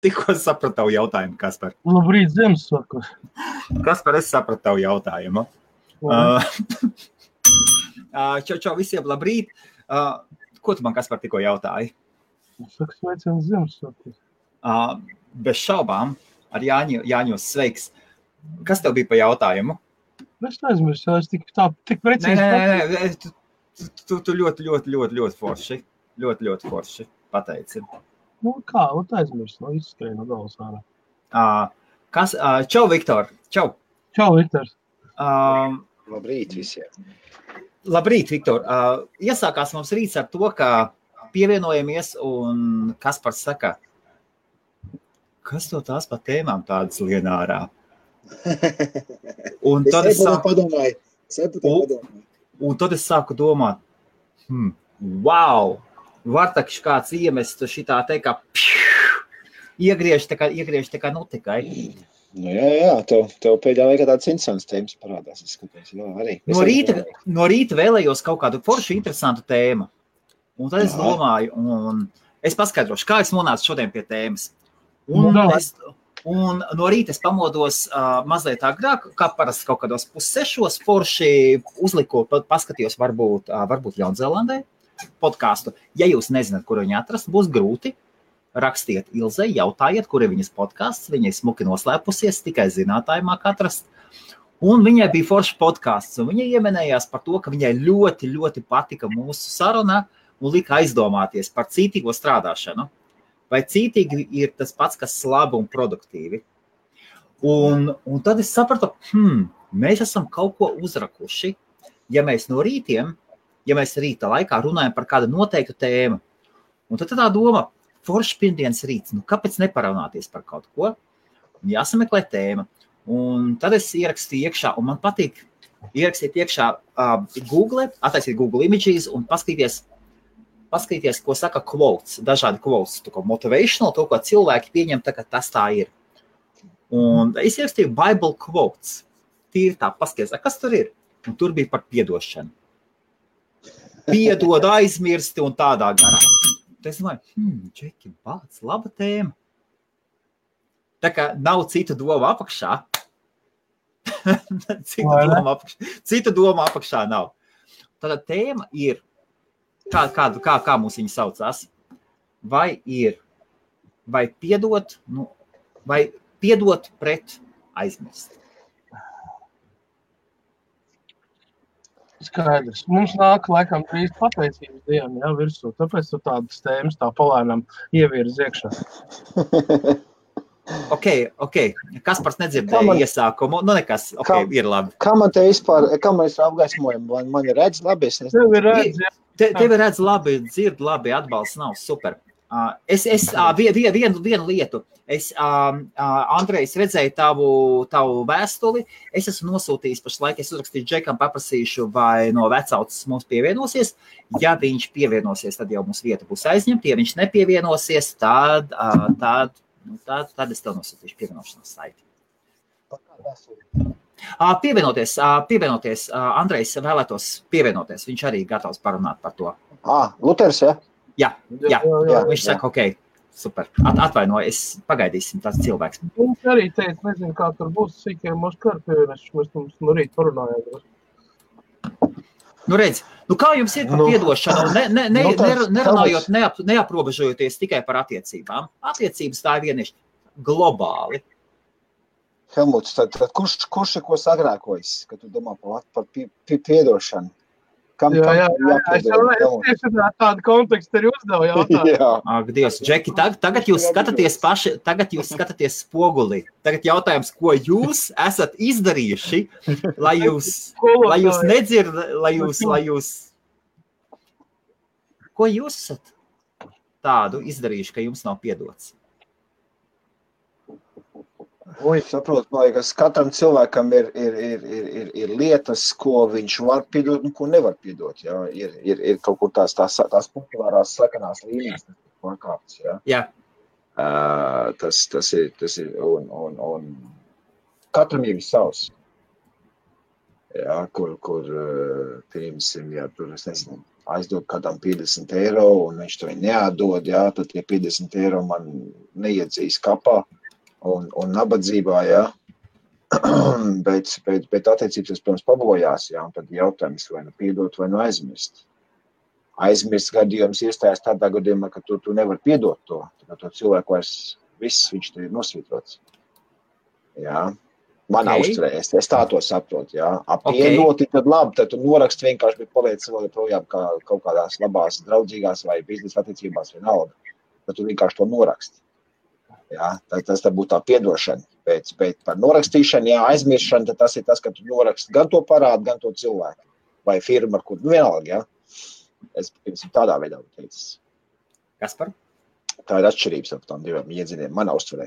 Tikko sapratu tavu jautājumu, Kaspar. Labrīt, Ziemassvētkos. Kaspar, es sapratu tavu jautājumu. Čau visiem, labrīt. Ko tu man, Kaspar, tikko jautāji? Es saku, sveiciens Ziemassvētkos. Bez šaubām, ar Jāņos sveiks. Kas tev bija pa jautājumu? Es neaizmirsu, es tik precīzi. Nē, tu ļoti forši. Ļoti forši pateici. Nu kā, aizmirsu, izskrēju no galvas ārā. Čau, Viktor. Čau. Čau, Viktor. Labrīt visiem. Labrīt, Viktor. Iesākās mums rīts ar to, ka pievienojamies un Kaspars saka, kas to tās pa tēmām tādas lien ārā? Un tad es sāku domāt, wow, var taču kāds iemest šitā teikt, kā iegriež tā kā nutikai. Nu jā, tev pēdējā laikā tāds interesants tēmas parādās, es skatos, jā, arī. No rīta vēlējos kaut kādu foršu interesantu tēmu. Un tad es domāju, un es paskaidrošu, kā es nonācu šodien pie tēmas. Un no rīta es pamodos mazliet agrāk, kā parasti kaut kādos 5:30 forši uzliku, paskatījos varbūt Jaunzēlandē podcastu. Ja jūs nezināt, kur viņu atrast, būs grūti. Rakstiet Ilzei, jautājiet, kur ir viņas podcasts. Viņa ir smuki noslēpusies, tikai zinātāji māk atrast. Un viņai bija foršs podcasts, un viņa ieminējās par to, ka viņai ļoti patika mūsu saruna un lika aizdomāties par cītīgo strādāšanu. Vai cītīgi ir tas pats, kas labi un produktīvi. Un tad es sapratu, mēs esam kaut ko uzrakuši, ja mēs rīta laikā runājam par kādu noteiktu tēmu. Un tad tā doma, foršs pirmdienas rīts, kāpēc neparunāties par kaut ko? Jāsameklē tēma. Un tad es ierakstīju iekšā, un man patīk ierakstīt iekšā attaisīt Google Images un paskatīties, ko saka quotes, dažādi quotes, to, ko motivational, to, ko cilvēki pieņem, tā, ka tas tā ir. Un es ierakstīju Bible quotes. Tīri tā, paskaties, kas tur ir? Un tur bija par piedošanu. Piedod, aizmirsti un tādā garā. Tad es domāju, Džeki, bāc, laba tēma. Tā kā nav citu domu apakšā. Citu domu apakšā nav. Tātad tēma ir, kā mums viņa saucās, vai piedot pret aizmirst. Skaidrs. Mums nāk laikam drīz pateicības diena, virsū. Tāpēc tu tādas tēmas tā palēnām ievirz iekšā. Ok. Kaspars nedzirdēja iesākumu. Nu nekas, ir labi. Kā man te vispār apgaismojumi? Man ir redz labi? Tevi redz labi, dzird labi, atbalsts nav super. Vienu lietu. Andrejs, redzēju tavu vēstuli. Es esmu nosūtījis pašlaik, es uzrakstīju Džekam, paprasīšu, vai no vecautas mums pievienosies. Ja viņš pievienosies, tad jau mums vieta būs aizņemta. Ja viņš nepievienosies, tad es tev nosūtīšu pievienošanās saiti. Pievienoties. Andrejs vēlētos pievienoties. Viņš arī gatavs parunāt par to. Luters, ja? Jā. Viņš saka, ok, super. Atvainoju, pagaidīsim tās cilvēks. Viņš arī teica, nezinu, kā tur būs, sīkiem mums karpievieneš, mēs mums no rīt parunājām. Redz, kā jums ir par piedošanu? Nerunājot, neaprobežojoties tikai par attiecībām. Attiecības tā ir vienīši globāli. Helmuts, tad kurš ir ko sagrēkojis, kad tu domā par piedošanu? Jā, es tieši tādu kontekstu arī uzdevu jautājumu. Ak, Dievs, Džeki, tagad jūs skatāties spogulī. Tagad jautājums, ko jūs esat izdarījuši, lai jūs ko jūs esat tādu izdarījuši, ka jums nav piedots? Saprotu, man liekas, katram cilvēkam ir lietas, ko viņš var piedot un ko nevar piedot. Jā. Ir kaut kur tās populārās slakanās līnijas, tas ir pārkāpts. Jā. Tas ir un katram ir savs. Jā, kur pieņemsim, ja tur, es nezinu, aizdod kādam 50 eiro, un viņš to neatdod, jā, tad tie 50 eiro man neiedzīs kapā un nabadzībā, jā. bet attiecības, protams, pabojās, jā, un tad jautājums vai nu piedot, vai nu aizmirst. Aizmirst gadījums iestājas tādā gadījumā, ka tu nevar piedot to. To cilvēku vairs viss, viņš te ir nosvītrots. Jā. Manā uzturē, es tā to saprotu, jā. Piedoti, tad labi, tad tu noraksti vienkārši, bet paliec vēl projām kā kaut kādās labās, draudzīgās vai biznesa attiecībās vienalga. Tad tu vienkārši to noraksti. Jā, tas tā būtu tā piedošana. Bet par norakstīšanu, jā, aizmiršanu, tad tas ir tas, ka tu noraksti gan to parādu, gan to cilvēku. Vai firma, ar kur vienalga, jā. Es tādā veidā teicis. Kaspar? Tā ir atšķirības ap tām divām iedziniem manā uztverē.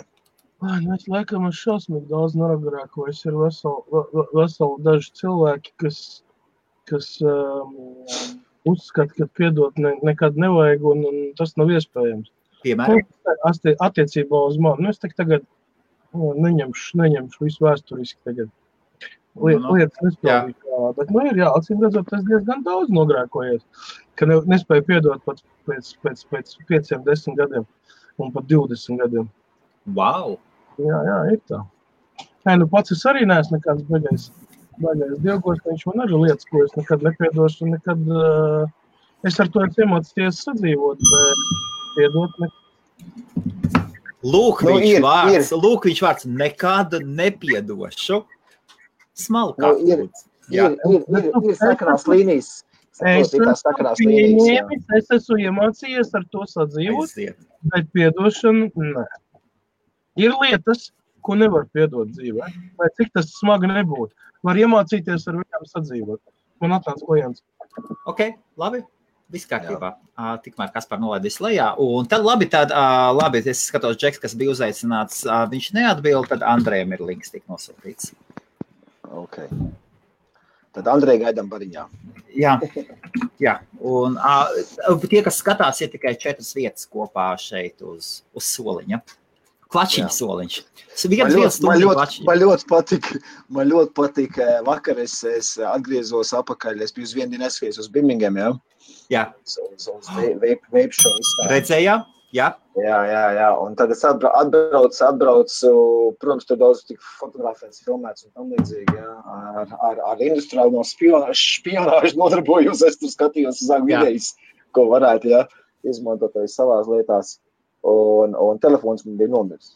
Es laikam es šausmīgi daudz noragarākojas. Ir veseli daži cilvēki, kas uzskata, ka piedot nekad nevajag, un tas nav iespējams. Piemēram? Attiecībā uz mani. Es tagad neņemšu visu vēsturiski tagad. Lietas nespēlīju, bet ir acīm redzot, tas diezgan daudz nogrēkojies, ka nespēju piedot pat pēc 5-10 gadiem un pat 20 gadiem. Wow! Jā, ir tā. Pats es arī neesmu nekāds baigais dievgos, viņš man arī lietas, ko es nekad nepiedošu, nekad es ar to iemācīties sadzīvot, bet piedot nekad. Lūk, viņš vārds nekad nepiedošu. Smalkāk. Ir sakarās līnijas. Es esmu iemācījies ar to sadzīvot, bet piedošanu nē. Ir lietas, ko nevar piedot dzīvē, lai cik tas smagi nebūtu. Var iemācīties ar viņām sadzīvot. Man atnāca klients. Ok, labi. Viss kārtībā. Tikmēr Kaspar nolaidīs lejā. Un tad labi, es skatos Džeks, kas bija uzaicināts, viņš neatbild, tad Andrejam ir links tik nosūtīts. Ok. Tad Andrei gaidām bariņā. Jā. Un tie, kas skatās, ir tikai 4 vietas kopā šeit uz soliņa. Klačiņa soliņš. Man ļoti patika. Vakar es atgriezos apakaļ. Es biju uz vienu dienu neskaties uz Birmingham, jā? Jā. Uz vape show izstādi. Redzējām? Jā. Un tad es atbraucu, protams, tur daudz tik fotografēts, filmēts un tam līdzīgi, jā. Ar industriāli no špionāžu nodarbojos, es tur skatījos uz videjas, ko varētu, jā, izmantot savās lietās. Un telefons man bija nomirs.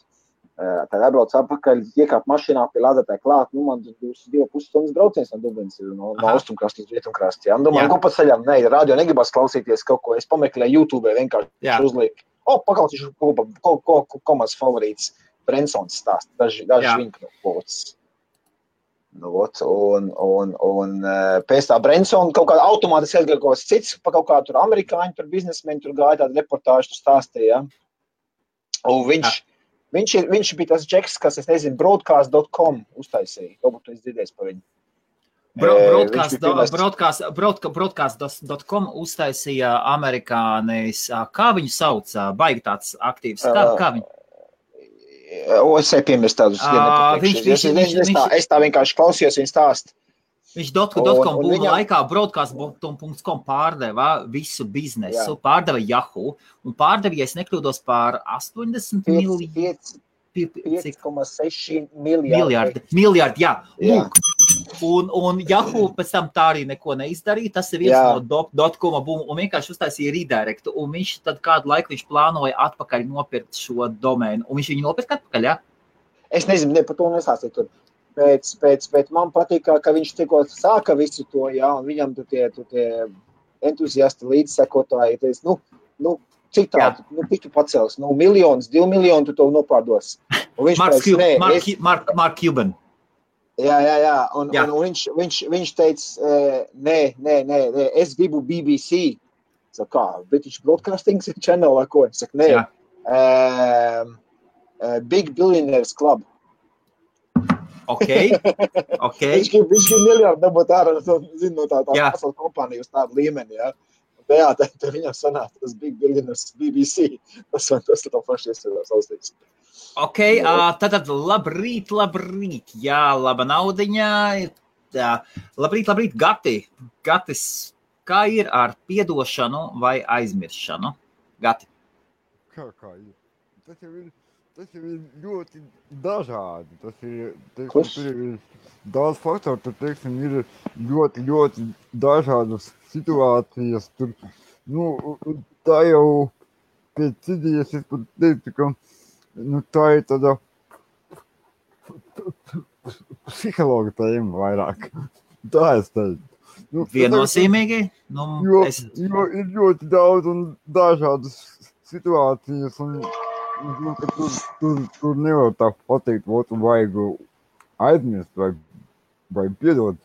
Tad atbraucu apakaļ, iekāp mašīnā pie lādētāja klāt, man 2,5 stundas brauciens no Dublinas no austrumkrasta uz rietumkrasta. Domāju, ko pa ceļam, radio negribas klausīties kaut ko, es pameklēju YouTube vienkārši uzlieku. Paklausīšu, ko mans favorīts Brensons stāst, daži viņa knopots. Un pēc tā Brensona kaut kāda automātiski aizgāja kaut kāds cits, pa kaut kā tur amerikāņi, tur biznesmeni, tur gāja tādu reportāžu, tur stāstīja. Un viņš bija tas Džeks, kas, es nezinu, broadcast.com uztaisīja. Varbūt tu esi dzirdējis par viņu. Broadcast.com uztaisīja amerikānis, kā viņu sauc, baigi tāds aktīvs, kā viņu? Es piemirstu tādus. Es tā vienkārši klausījos viņu stāst. Viņš .com būma laikā broadcast.com pārdeva visu biznesu, pārdeva Yahoo, un pārdeva, ja es nekļūdos, pār 80 5,6 miljārdi. Jā. Lūk. Un Yahoo pēc tam tā arī neko neizdarīja. Tas ir viens no .com būmu un vienkārši uztaisīja redirectu. Un viņš tad kādu laiku viņš plānoja atpakaļ nopirkt šo domēnu. Un viņš viņu nopirka atpakaļ, jā? Es nezinu, par to nesāstīju tur. Bet man patīk, ka viņš tikko sāka visu to, jā, un viņam tie entuziasti līdzsekotāji, cik tādu, cik tu pacels, 1 miljonus, 2 miljonu tu to nopārdos. Mark Cuban. Jā, un viņš teica, nē, es gribu BBC. Saka, kā, British Broadcasting Channel vai ko? Saka, nē, Big Billionaires Club. Ok. Viņš grib miljardu dabūt ārā, no tā pasaules kompānija uz tādu līmeni, jā. Jā, te viņam sanāk tas Big Billionaires BBC. Tas tā paši iesvedās austīgs. Ok, tad labrīt. Jā, laba naudiņā. Labrīt, Gatis, kā ir ar piedošanu vai aizmiršanu? Gati. Kā ir? Tas jau ir ļoti dažādi. Tas ir, teiksim, tur ir daudz faktoru, tur, teiksim, ir ļoti dažādas situācijas. Tur, tā jau pēc idejas es pat teiktu, ka, tā ir tāda psihologa tēma vairāk. Tā es teiktu. Viennozīmīgi? Jo ir ļoti daudz un dažādas situācijas, un tur nevar tā pateikt, vajag aizmirst vai piedot.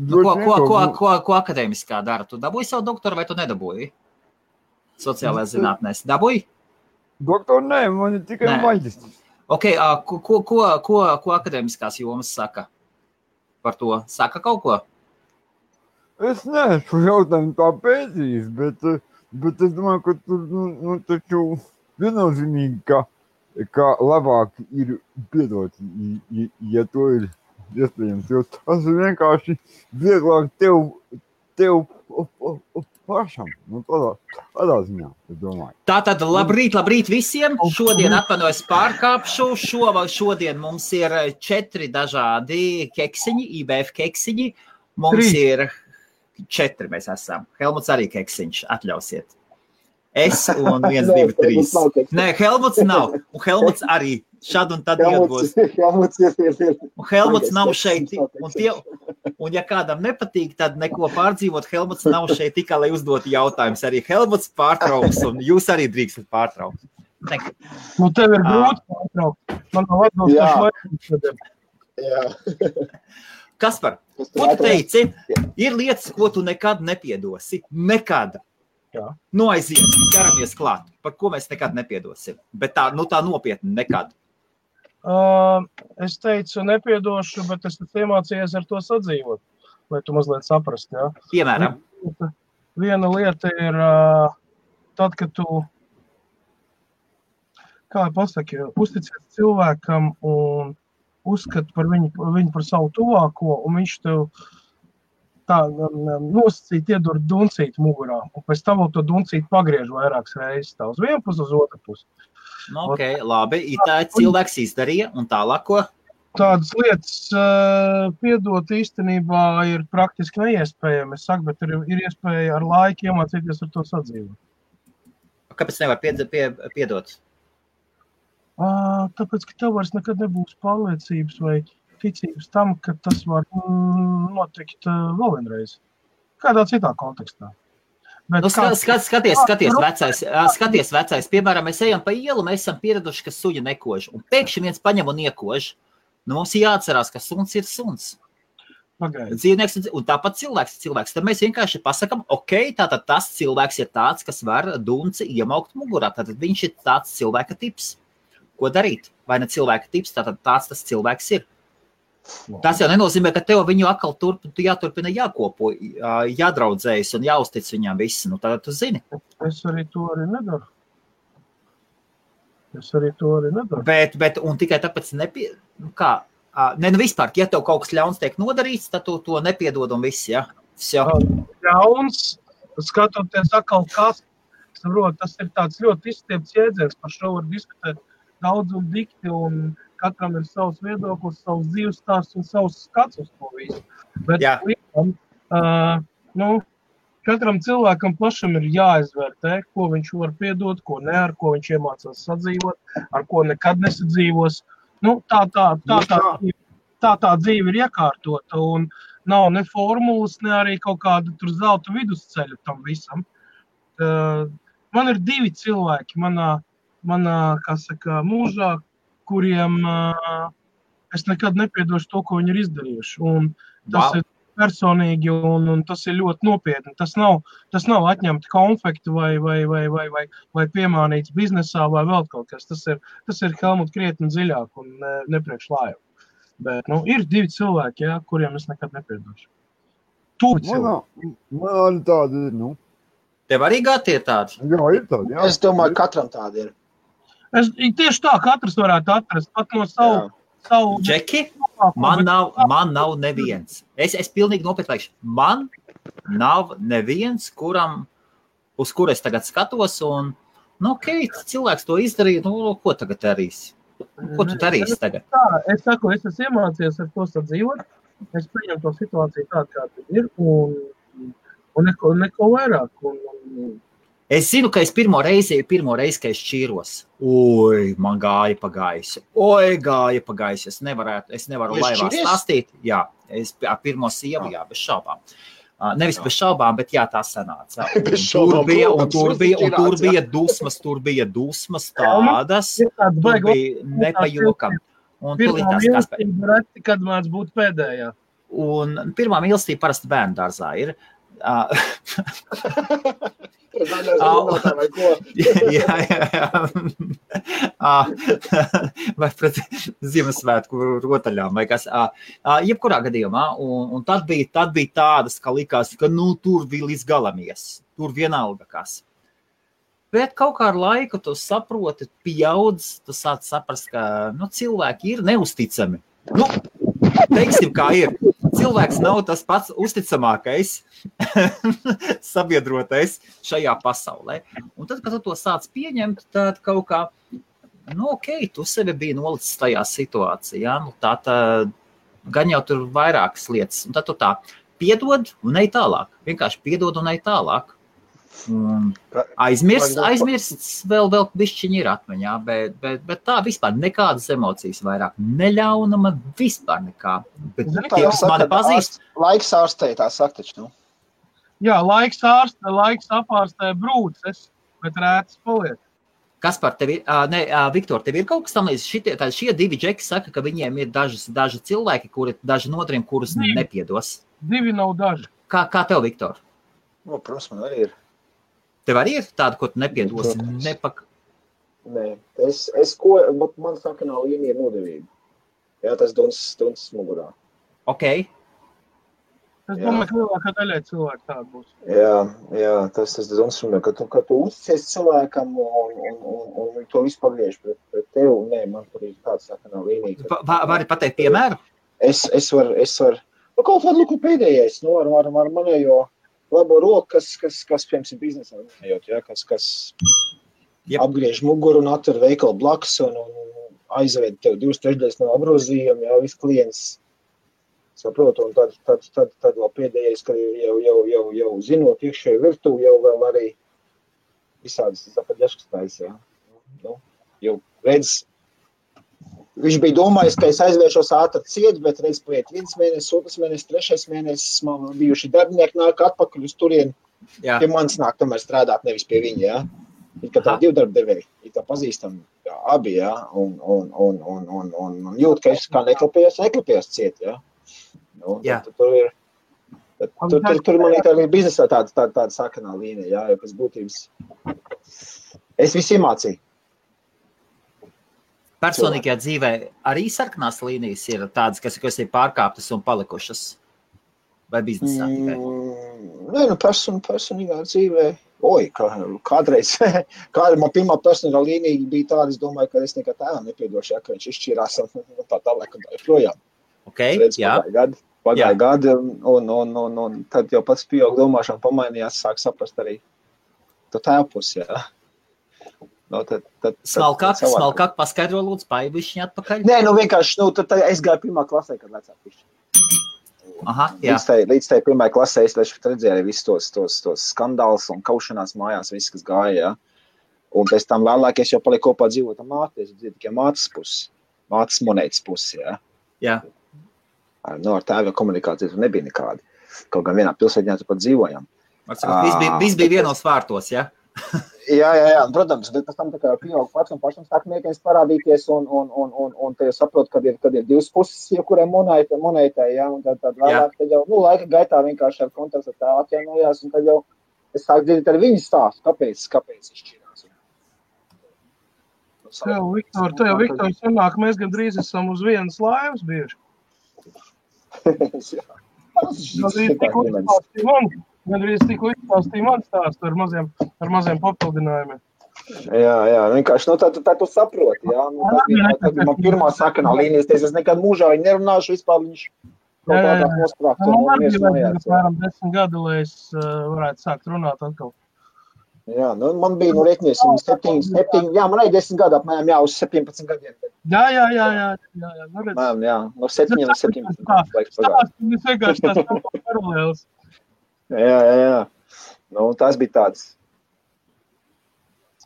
Ko akadēmiskā dara? Tu dabūji savu doktoru vai tu nedabūji? Sociālajās zinātnēs. Dabūji? Doktoru nē, man ir tikai maģistrs. Ok, ko akadēmiskās jomas saka par to? Saka kaut ko? Es neesmu jautājumu tā pētījis, bet es domāju, ka tur, taču viennozīmīgi, ka labāk ir piedot, ja to ir iespējams, jo tas ir vienkārši vieglāk tev pašam, tādā ziņā, es domāju. Tātad labrīt visiem, šodien atvainojos pārkāpšu, šodien mums ir 4 dažādi keksiņi, IBF keksiņi, mums ir 4 mēs esam, Helmuts arī keksiņš, atļausiet. Es un 1, 2, 3. Nē, Helmuts nav, un Helmuts arī šad un tad iegūs. Un Helmuts nav šeit, un ja kādam nepatīk, tad neko pārdzīvot, Helmuts nav šeit tikai, lai uzdotu jautājumus. Arī Helmuts pārtrauks, un jūs arī drīkstat pārtraukt. Tev ir grūti pārtraukt. Man nav atbilstoši. Jā. Kaspar, ko tu teici? Ir lietas, ko tu nekad nepiedosi. Nekad. Jā. Aiziet, ķeramies klāt. Par ko mēs nekad nepiedosim. Bet tā nopietni nekad. Es teicu nepiedošu, bet es iemācījos ar to sadzīvot, lai tu mazliet saprast. Ja? Piemēram? Viena lieta ir tad, kad tu, kā pasaki, uzticies cilvēkam un uzskat par viņu par savu tuvāko, un viņš tev tā nosacīt iedur duncīt mugurā, un pēc tam to duncīt pagriež vairākas reizes, tā uz vienu pusi, uz otru pusi. Ok, labi, tā cilvēks izdarīja, un tālāk ko? Tādas lietas piedot īstenībā ir praktiski neiespējami, es saku, bet ir iespēja ar laiku iemācīties ar to sadzīvot. Kāpēc nevar piedot? Tāpēc, ka tev vairs nekad nebūs pārliecības vai ticības tam, ka tas var notikt vēl vienreiz. Kādā citā kontekstā. Skaties vecais. Piemēram, mēs ejam pa ielu, mēs esam pieraduši, ka suņa nekož. Un pēkšņi viens paņem un iekož. Mums jāatcerās, ka suns ir suns. Dzīvnieks, un tāpat cilvēks. Tad mēs vienkārši pasakam, ok, tātad tas cilvēks ir tāds, kas var dunci iemaukt mugurā. Tātad viņš ir tāds cilvēka tips. Ko darīt? Vai ne cilvēka tips, tātad tāds tas cilvēks ir. Tas jau nenozīmē, ka tev viņu atkal jāturpina jākopo, jādraudzējas un jāuztic viņām visi. Tagad tu zini. Es arī to nedaru. Bet, un tikai tāpēc vispār, ja tev kaut kas ļauns tiek nodarīts, tad tu to nepiedod un viss, ja? Ļauns, skatoties atkal kas, saprot, tas ir tāds ļoti izstiepts jēdziens, par šo var diskutēt daudz un dikti, un katram ir savs viedoklis, savs dzīves stāsts un savs skats uz to visu. Bet katram cilvēkam pašam ir jāizvērtē, ko viņš var piedot, ko ne, ar ko viņš iemācās sadzīvot, ar ko nekad nesadzīvos. Tā dzīve ir iekārtota un nav ne formulas, ne arī kaut kāda tur zelta vidusceļa tam visam. Man ir 2 cilvēki manā mūžā, kuriem es nekad nepiedošu to, ko viņi ir izdarījuši. Un tas ir personīgi un tas ir ļoti nopietni. Tas nav atņemti konfekti vai piemānīts biznesā vai vēl kaut kas. Tas ir Helmut krietni dziļāk un nepriekš lājā. Bet ir 2 cilvēki, kuriem es nekad nepiedošu. Man arī tādi ir, Tev arī gati ir tādi? Jā, ir tādi, jā. Es domāju, katram tādi ir. Tieši tā, katrs varētu atrast pat no savu Džeki? Man nav neviens. Es pilnīgi nopietni. Man nav neviens, uz kuru es tagad skatos, un, cilvēks to izdarīja, ko tagad darīs? Ko tu darīsi tagad? Es saku, es esmu iemācījies ar to sadzīvot. Es pieņemu to situāciju tādu, kāda ir, un neko vairāk. Es zinu, ka es pirmo reizi, ka es šķīros. Oi, man gāja pa gaisu. Es nevaru laivā stāstīt. Jā, es ar pirmo sievu, jā, bez šaubām. Nevis bez šaubām, bet jā, tā sanāca. Tur bija dusmas tādas, tur bija nepajokam. Pirmā mīlestība reti, kad māc būt pēdējā. Un pirmā mīlestība parasti bērnu dārzā ir. Vai pret Ziemassvētku rotaļām vai kas. Jebkurā gadījumā, un tad bija tādas, ka likās, ka tur bija līdz galamies, tur vienalga kas. Bet kaut kā ar laiku tu saproti, pieaudz, tu sāc saprast, ka cilvēki ir neusticami. Teiksim, kā ir. Cilvēks nav tas pats uzticamākais sabiedrotais šajā pasaulē. Un tad, kad tu to sāc pieņemt, tad kaut kā, tu sevi biji nolicis tajā situācijā. Tā gan jau tur vairākas lietas. Un tad tu tā piedod un ej tālāk. Vienkārši piedod un ej tālāk. Aizmirsts vēl bišķiņi ir atmiņā, bet tā vispār nekādas emocijas vairāk neļaunama, vispār nekā. Bet tie, kas mani pazīst... Laiks ārstē, tā saka taču, Jā, laiks apārstē brūces, bet rētas paliek. Kas par tevi? Viktor, tev ir kaut kas tam līdz? Šie divi džeki saka, ka viņiem ir daži cilvēki, daži notriem, kurus nepiedos. Divi nav daži. Kā tev, Viktor? Protams, man arī ir. Tev arī ir tāda, ko tu nepiedosi? Nē, bet man saka, nav līnija nodevība. Jā, tas duncis mugurā. Ok. Es domāju, ka lielākā daļai cilvēku tāda būs. Jā, tas duncis mugurā, ka tu uzticies cilvēkam un to visu pagriež pret tevi. Nē, man tur ir tāds saka, nav līnija. Vari pateikt piemēru? Es varu. Kaut kādu luku pēdējais, ar manējo labo roku, kas piemēram, biznesā runājot, ja, kas apgriež muguru un atver veikalu blakus un aizved tev 2/3 no apgrozījuma, ja, viss klients saprotu, un tad vēl pēdējais, ka jau zinot iekšēju virtuvi, jau vēl arī visādas zapaļaškas, ja. Jau redz, viņš bija domājis, ka es aizvēršos ātri ciet, bet reiz paiet 1 mēnesis, 2 mēnesis, 3 mēnesis, man bijuši darbinieki nāk atpakaļ uz turien, pie manis nāk tomēr strādāt, nevis pie viņa, jā. Ir kā tā 2 darbdevēji, ir tā pazīstam, jā, abi, jā, un jūt, ka es kā neklapējos ciet, jā. Tur man ir biznesā tāda sakanā līnija, jā, jo pēc būtības es visu iemācīju. Personīgajā dzīvē arī sarkanās līnijas ir tādas, kas ir pārkāptas un palikušas? Vai biznesā tikai? Nē, personīgā dzīvē. Kādreiz, man pirmā personīgā līnija bija tāda, es domāju, ka es nekā tēvam nepiedošu, ka viņš izšķirās un tā tālāk un tā joprojām. Pagāja gadi, un tad jau pats pieaug domāšana pamainījās, sāk saprast arī to tēvpus, jā. Smalkāk paskaidro lūdzu, paibišķiņ atpakaļ? Nē, vienkārši, tad es gāju pirmā klasē, kad vecāk pišķi. Aha, jā. Līdz tai pirmā klasē es redzēju arī visus tos skandālus un kaušanās mājās, viss, kas gāja, jā. Un pēc tam vēlāk es jau paliku kopā dzīvot ar māti, es dzīvoju tikai mātes monētas pusi, jā. Jā. Ar tēva komunikācijas nebija nekādi. Kaut gan vienā pilsētņā tu pat dzīvojam. Viss bija vienos vārtos, jā? Jā, protams, bet pēc tam tā kā pieaug pats un pašam sāk mēģinās parādīties un te jau saprot, kad ir 2 puses, jebkurai monētai, jā, un tad vēlāk, tad jau, laika gaitā vienkārši ar kontaktu tā atjaunojās, un tad jau es sāku dzirdēt ar viņu stāstu, kāpēc izšķirās. Tev, Viktor, sanāk, mēs gandrīz esam uz vienas laivas bieži. Gandrīz tikko izklāstīja man stāstu ar maziem papildinājumiem. Jā, vienkārši, tā tu saproti, jā. Tas bija man pirmā sakanā līnijas, es nekad mūžā viņu nerunāšu, vispār viņš kaut kādā nosprākt. Man arī bija apmēram 10 gadu, lai es varētu sākt runāt atkal. Jā, man bija, rēķinies, 7, man arī 10 gadu apmēram, uz 17 gadiem. Jā. Jā, no 7 līdz 17 gadiem. Tas vienkārši tās paralēlis. Jā. Tas bija tāds.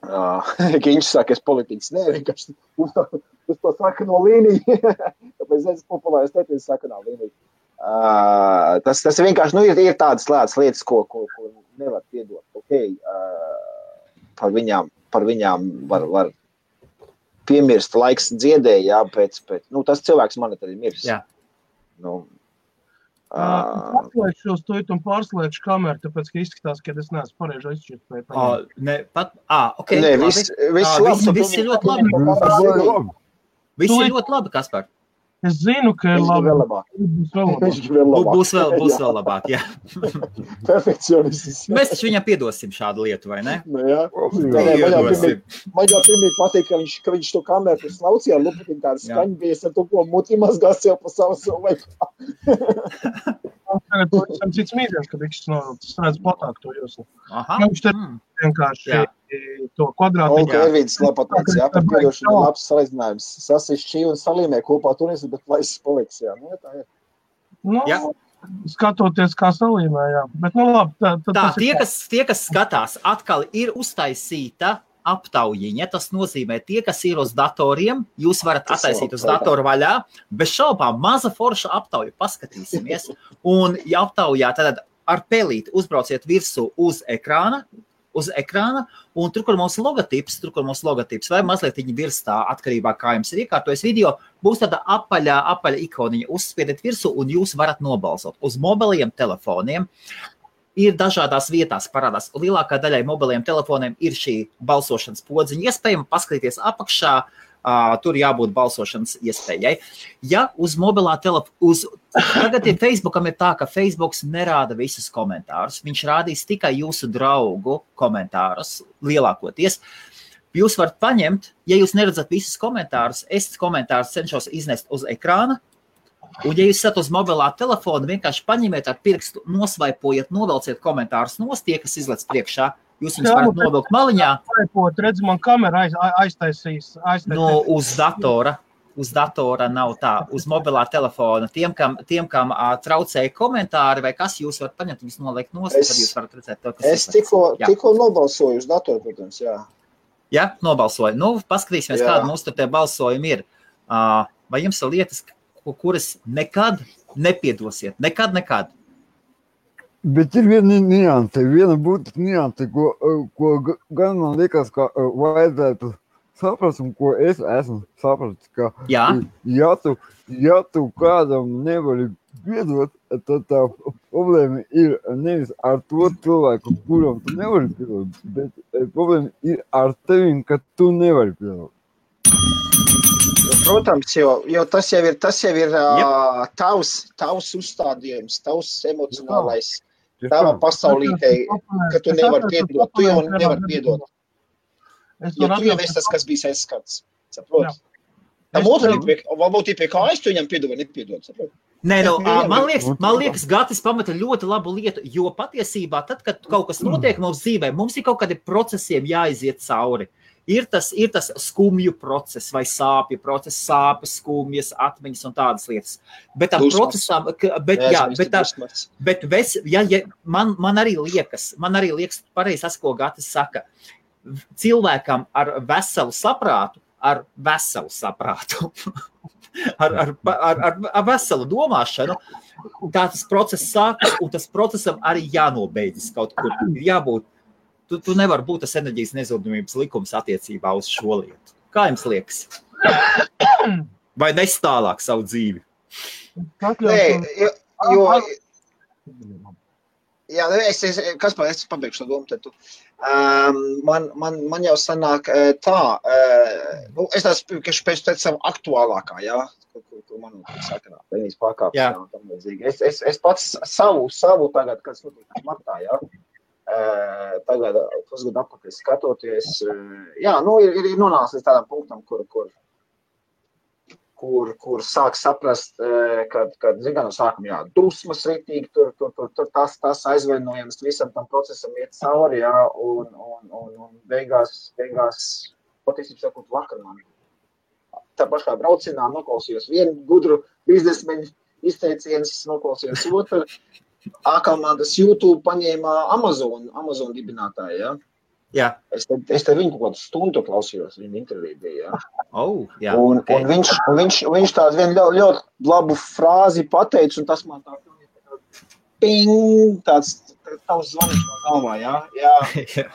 Viņš saka, es politiķis, vienkārši uz to sakano līniju. Tāpēc es populāri stēties sakanā līniju. Tas vienkārši, ir tādas lietas, ko nevar piedot. Okay. Par viņām var piemirst, laiks dziedēja, jā, pēc tas cilvēks man arī mirs. Jā. Atslēgšu uz to un pārslēgšu kameru, tāpēc, ka izskatās, ka es neesmu pareizi izšķirt. Okay. Nē, viss ir ļoti labi. Viss ir ļoti labi, Kaspar. Es zinu, ka ir labi. Būs vēl labāk, jā. Perfekcionists. Mēs taču viņam piedosim šādu lietu, vai ne? Jā. Man jau pirmie patīk, ka viņš to kameru slaucīja, lupatīm tāda skaņa bija, es ar to, ko muti mazgās jau pa savu laikā. Tagad to esam cits mīdienas, kad viņš redz platāk to jūsu. Viņš te vienkārši to kvadrātu. Ervīds Lapatēns, jā, par piedošanu labs salīdzinājums. Sasišķī un salīmē kopā turis, bet laisis paliks, jā. Tā ir. Skatoties, kā salīmē, jā. Bet, labi. Tie, kas skatās, atkal ir uztaisīta aptaujiņa. Tas nozīmē, tie, kas ir uz datoriem, jūs varat attaisīt uz datoru vaļā. Bez šaubām, maza forša aptauja. Paskatīsimies. Un, ja aptaujā, tad ar pelīti uzbrauciet virsū uz ekrāna, un tur, kur mūsu logotips, vai mazliet viņi virstā, atkarībā, kā jums ir iekārtojas video, būs tāda apaļa ikoniņa. Uzspiediet virsū, un jūs varat nobalsot. Uz mobiliem telefoniem ir dažādās vietās parādās. Lielākā daļai mobiliem telefoniem ir šī balsošanas podziņa iespējama. Paskatīties apakšā, tur jābūt balsošanas iespējai. Ja uz mobilā tagad Facebookam ir tā, ka Facebooks nerāda visus komentārus. Viņš rādīs tikai jūsu draugu komentārus lielākoties. Jūs varat paņemt, ja jūs neredzat visus komentārus, es komentārus cenšos iznest uz ekrāna. Un, ja jūs esat uz mobilā telefona, vienkārši paņemiet ar pirkstu, nosvaipojiet, novelciet komentārus nost, tie, kas izlec priekšā, jūs viņus varat novilkt maliņā. Redz, man kamera aiztaisīs. Uz datora nav tā, uz mobilā telefona. Tiem, kam traucēja komentāri vai kas, jūs varat paņemt, viņus noliekt nost, tad jūs varat redzēt to, kas es tikko nobalsoju uz datoru, protams, jā. Jā, nobalsoju. Paskatīsimies, kāda mums tur tie balsojumi ir. Vai jums ir lietas, kuras nekad nepiedosiet? Nekad. Bet ir viena būtiska nianse, ko gan man liekas, ka vajadzētu saprast, un ko es esmu sapratis, ka ja tu kādam nevari piedot, tad tā problēma ir nevis ar to cilvēku, kuram tu nevari piedot, bet problēma ir ar tevim, ka tu nevari piedot. Protams, jo tas jau ir tavs uzstādījums, tavs emocionālais, tava pasaulītē, ka tu nevari piedot, tu jau nevari piedot. Jo tu jau esi tas, kas bija aizskats, saproti? Tam otram varbūt ir pie kājas, tu viņam piedod vai nepiedod, saproti? Nē, man liekas, Gatis pamata ļoti labu lietu, jo patiesībā tad, kad kaut kas notiek mums dzīvē, mums ir kaut kādi procesiem jāiziet cauri. Ir tas skumju process vai sāpju process, sāpes, skumjas, atmiņas un tādas lietas. Bet tam procesam, man arī liekas pareizi tas, ko Gatis saka. Cilvēkam ar veselu saprātu, ar veselu domāšanu, tā tas process sākas, un tas procesam arī jānobeidzas kaut kur. Jābūt. Tu nevar būt tas enerģijas nezudumības likums attiecībā uz šo lietu. Kā jums liekas? Vai nes tālāk savu dzīvi? Es pabeigšu to domu, tad tu. Man jau sanāk tā, es neesmu pēc savu aktuālākā, jā, ko man sakanā, vienīs pārkāpšanā un tam līdzīgi. Es pats savu tagad, kas notiek martā, jā. tagad pusgadu apakaļ skatoties, jā, ir nonācis līdz tādam punktam, kur sāk saprast, kad zin, no sākuma, jā, dusmas ritīgi, tur tas aizvainojums visam tam procesam iet cauri, jā, un beigās, patiesībā sakot, vakar man tā pašā braucienā noklausījos vienu gudru biznesmeņu izteicienus, noklausījos otru, A-komandas YouTube paņēma Amazon dibinātāju, ja? Jā. Es te viņu kaut kādu stundu klausījos, viņa interviju bija, ja? Jā. Un viņš tādu vienu ļoti labu frāzi pateica, un tas man tā ping, tāds tavs zvanīts no galvā, ja? Jā.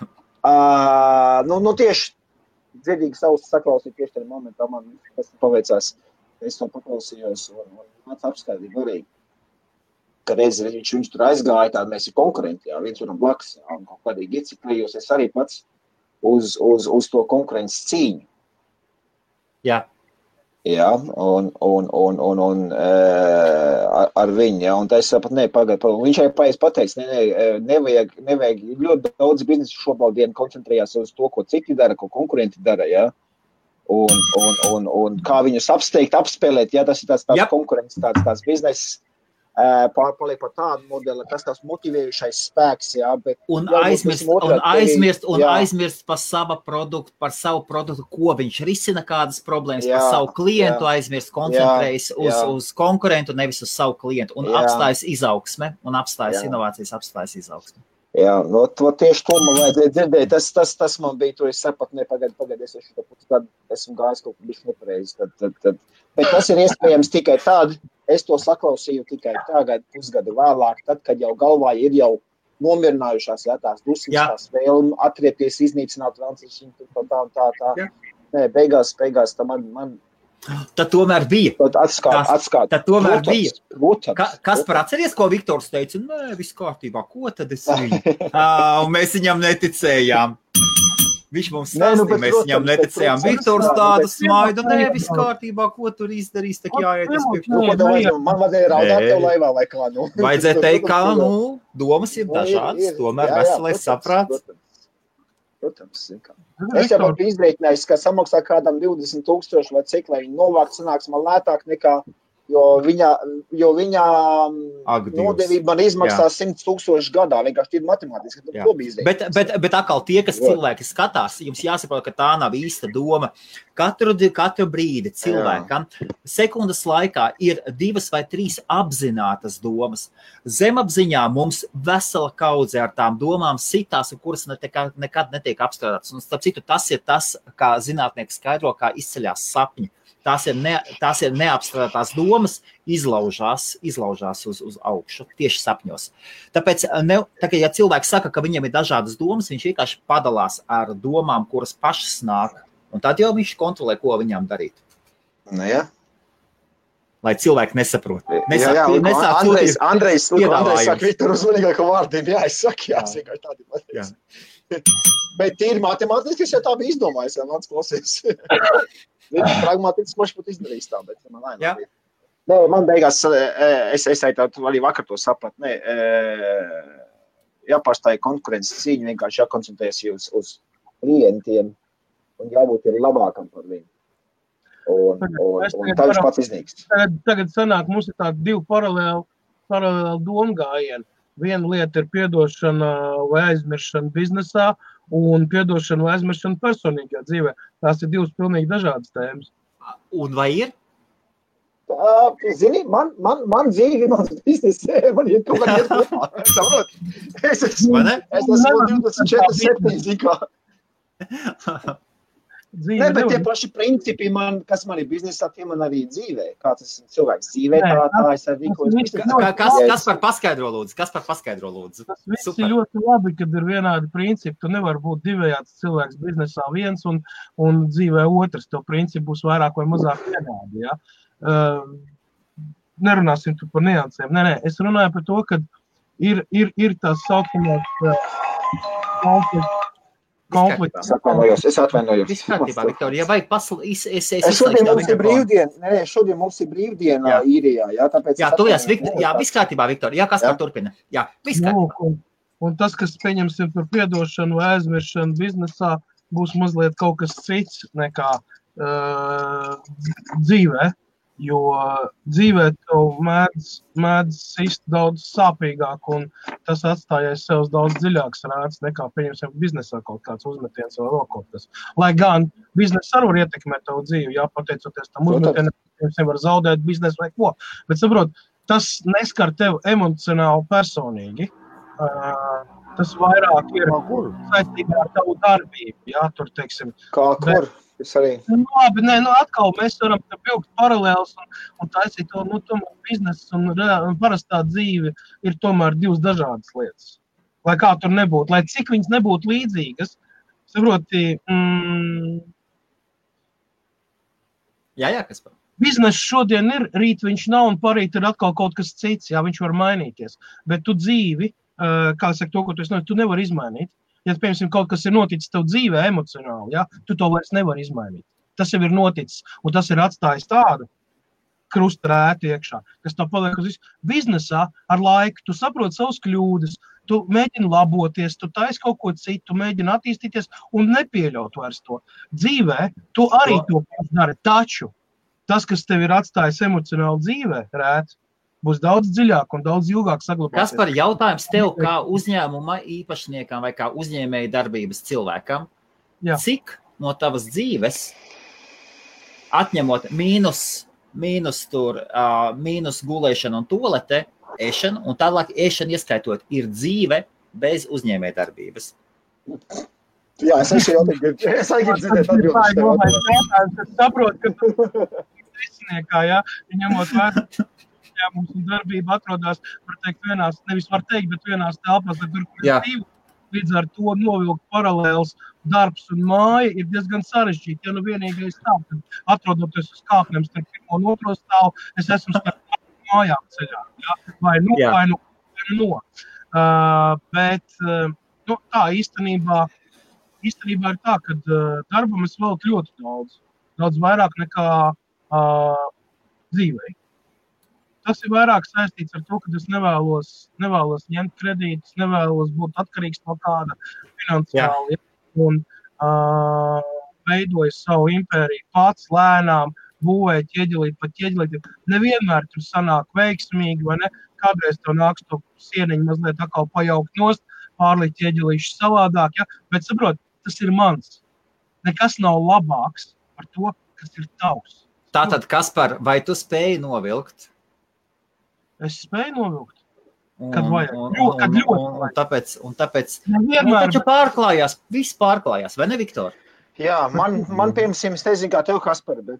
Nu tieši dzirdīgi savus saklausīt tieši tajā momentā, man tas paveicās, es to paklausījos, un māc apskaidīt arī. Ka reiz viņš tur aizgāja, tāda mēs ir konkurenti, jā, viens varam blakus, jā, un kaut kādīgi ieciklējos es arī pats uz to konkurences cīņu. Jā. Jā, un ar viņu, jā, un tā es sapat, pagaid, viņš arī pateiks, nevajag ļoti daudz biznesu šobrīd koncentrējās uz to, ko citi dara, ko konkurenti dara, jā. Un kā viņus apsteigt, apspēlēt, jā, tas ir tāds konkurences, tāds bizness, paliek par tādu modeli, kas tās motivējušais spēks, jā, bet... Un aizmirst par savu produktu, ko viņš risina kādas problēmas, par savu klientu aizmirst, koncentrējas uz konkurentu, nevis uz savu klientu, un apstājas izaugsme, un apstājas inovācijas, apstājas izaugsme. Jā, no tieši to man vajadzēja dzirdēt, tas man bija, tur es sapat, pagad, es šo pusgadu esmu gājis kaut kur bišķi nepareizi, bet tas ir iespējams tikai tādi, es to saklausīju tikai tagad, pusgadu vēlāk, tad, kad jau galvā ir jau nomierinājušās, jā, tās dusmas, tās vēlmi, atriepties, iznīcināt Francijas, tā. Nē, beigās, tā man... Tad tomēr bija. Atskāt. Tad tomēr bija. Kas par atceries, ko Viktors teica? Nē, viss kārtībā, ko tad es viņu? Un mēs viņam neticējām. Viņš mums stāstīja, mēs viņam neticējām. Viktors tādu smaidu, nē, viss kārtībā, ko tur izdarīs, tak jāiet uz priekšu. Man vajadzēja raudāt tev laivā vai kā, nu. Vajadzēja teikt, kā, domas ir dažādas, tomēr veselais saprāts. Protams, es jau biju izrēķinājis, ka samaksā kādam 20,000 vai cik, lai viņi novākt sanāks man lētāk nekā, jo viņa nodevība man izmaksās 100,000 gadā, vienkārši ir matemātiski, tad to bija izrēķinājis. Bet atkal tie, kas cilvēki skatās, jums jāsaprot, ka tā nav īsta doma. Katru brīdi cilvēkam sekundes laikā ir 2 vai 3 apzinātas domas. Zemapziņā mums vesela kaudze ar tām domām sitās, kuras nekad netiek apstrādātas. Un starp citu, tas ir tas, kā zinātnieki skaidro, kā izceļās sapņi. Tās ir neapstrādātās domas, izlaužās uz augšu, tieši sapņos. Tāpēc, ja cilvēks saka, ka viņam ir dažādas domas, viņš vienkārši padalās ar domām, kuras pašas nāk. Un tad jau viņš kontrolē, ko viņām darīt. Nu, jā. Lai cilvēki nesaprot. Andrejs saka, Viktor uzmanīgāko vārdiem, es vienkārši tādi pateicu. Bet tīri matemātiski es jau tā biju izdomājis, mans klausies. Viņš pragmatiski moši pat izdarīs tā, bet man laimā bija. Nē, man beigās, es arī vakar to saprat, jāpārstāja konkurences cīņu, vienkārši jākoncentrējas uz klientiem un jābūt ir labākam par viņu. Un tā viņš pats iznīkst. Tagad sanāk, mums ir tādi 2 paralēli domgājieni. Viena lieta ir piedošana vai aizmiršana biznesā un piedošana vai aizmiršana personīgajā dzīvē. Tās ir 2 pilnīgi dažādas tēmas. Un vai ir? Zini, man dzīvi, mans biznesē, man ir kaut kā iet kopā. Saprot? Es esmu 24/7 zikā. Nē, bet tie paši principi, kas man ir biznesā, tie man arī dzīvē. Kā tas cilvēks dzīvē, tā es arī rīkojos. Kas par paskaidro lūdzu? Tas viss ir ļoti labi, kad ir vienādi principi. Tu nevar būt divējāds cilvēks biznesā viens un dzīvē otrs. Tev principi būs vairāk vai mazāk vienādi, ja? Nerunāsim tu par niansēm. Nē, es runāju par to, ka ir tās saucamās konflikts. Es atvainojos. Viss kārtībā, Viktorija, ja vajag šodien mums ir brīvdiena īrijā, jā, tāpēc... Jā, viss kārtībā, Viktorija, jā, kas kā turpina? Jā, viss kārtībā. Un tas, kas pieņemsim par piedošanu vai aizmiršanu biznesā, būs mazliet kaut kas cits nekā dzīvē. Jo dzīvē tev mēdz sist daudz sāpīgāk, un tas atstājies sev daudz dziļāks rāds nekā, pieņemsim, biznesā kaut kāds uzmetiens vai vēl kaut kas. Lai gan biznesa arī var ietekmēt tavu dzīvi, jā, pateicoties tam uzmetienam, pieņemsim, var zaudēt biznesu vai ko. Bet, saprot, tas neskar tev emocionāli personīgi. Tas vairāk ir saistībā ar tavu darbību, jā, tur, teiksim. Kā kur? Labi, atkal mēs varam vilkt paralēlus un taisīt to, tomēr biznesa un parastā dzīve ir tomēr divas dažādas lietas. Lai kā tur nebūtu, lai cik viņas nebūtu līdzīgas, saproti, Jā, kas par? Bizness šodien ir, rīt viņš nav un parīt ir atkal kaut kas cits, jā, viņš var mainīties. Bet tu dzīvi, kā saka to, ko tu nevari izmainīt. Ja, piemēram, kaut kas ir noticis tev dzīvē emocionāli, ja, tu to vairs nevari izmainīt. Tas jau ir noticis, un tas ir atstājis tādu krustarētu iekšā, kas tev paliek uz visu. Biznesā ar laiku tu saproti savus kļūdas, tu mēģini laboties, tu taisi kaut ko citu, tu mēģini attīstīties un nepieļaut vairs to. Dzīvē tu arī to dari, taču tas, kas tev ir atstājis emocionāli dzīvē, rēt, būs daudz dziļāk un daudz ilgāk saglabāties. Kas par jautājums tev kā uzņēmuma īpašniekam vai kā uzņēmēja darbības cilvēkam, cik no tavas dzīves, atņemot mīnus gulēšanu un tolete, ēšanu, un tālāk ēšanu ieskaitot, ir dzīve bez uzņēmēja darbības? Jā, es arī dzirdēt atbildes. Es saprotu, ka tu risiniekā, jā, ņemot vērā. Mums un darbība atrodas, var teikt, bet vienās telpās, tur, kur ir dzīvo. Līdz ar to novilkt paralēls darbs un māja ir diezgan sarežģīti. Ja vienīgais tā, kad atrodoties uz kāpnēm starp pirmo un otro stāvu, es esmu starp mājām ceļā. Ja? Vai no. Bet tā īstenībā ir tā, ka darbam es veltu ļoti daudz. Daudz vairāk nekā dzīvei. Tas ir vairāk saistīts ar to, ka es nevēlos ņemt kredītus, nevēlos būt atkarīgs no kāda finansiāli. Un veidoju savu impēriju pats lēnām, būvēju ķieģelīt. Nevienmēr tur sanāk veiksmīgi, vai ne? Kādreiz tev nāks to sieniņu mazliet atkal pajaukt nost, pārlikt ķieģelīšu savādāk, ja? Bet saprot, tas ir mans. Nekas nav labāks par to, kas ir tavs. Tātad, Kaspar, vai tu spēji novilkt? Es spēju novilkt, kad vajag. Kad ļoti un tāpēc taču pārklājās, viss pārklājās, vai ne, Viktor? Jā, man piemēram, es nezinu, kā tev, Kaspar, bet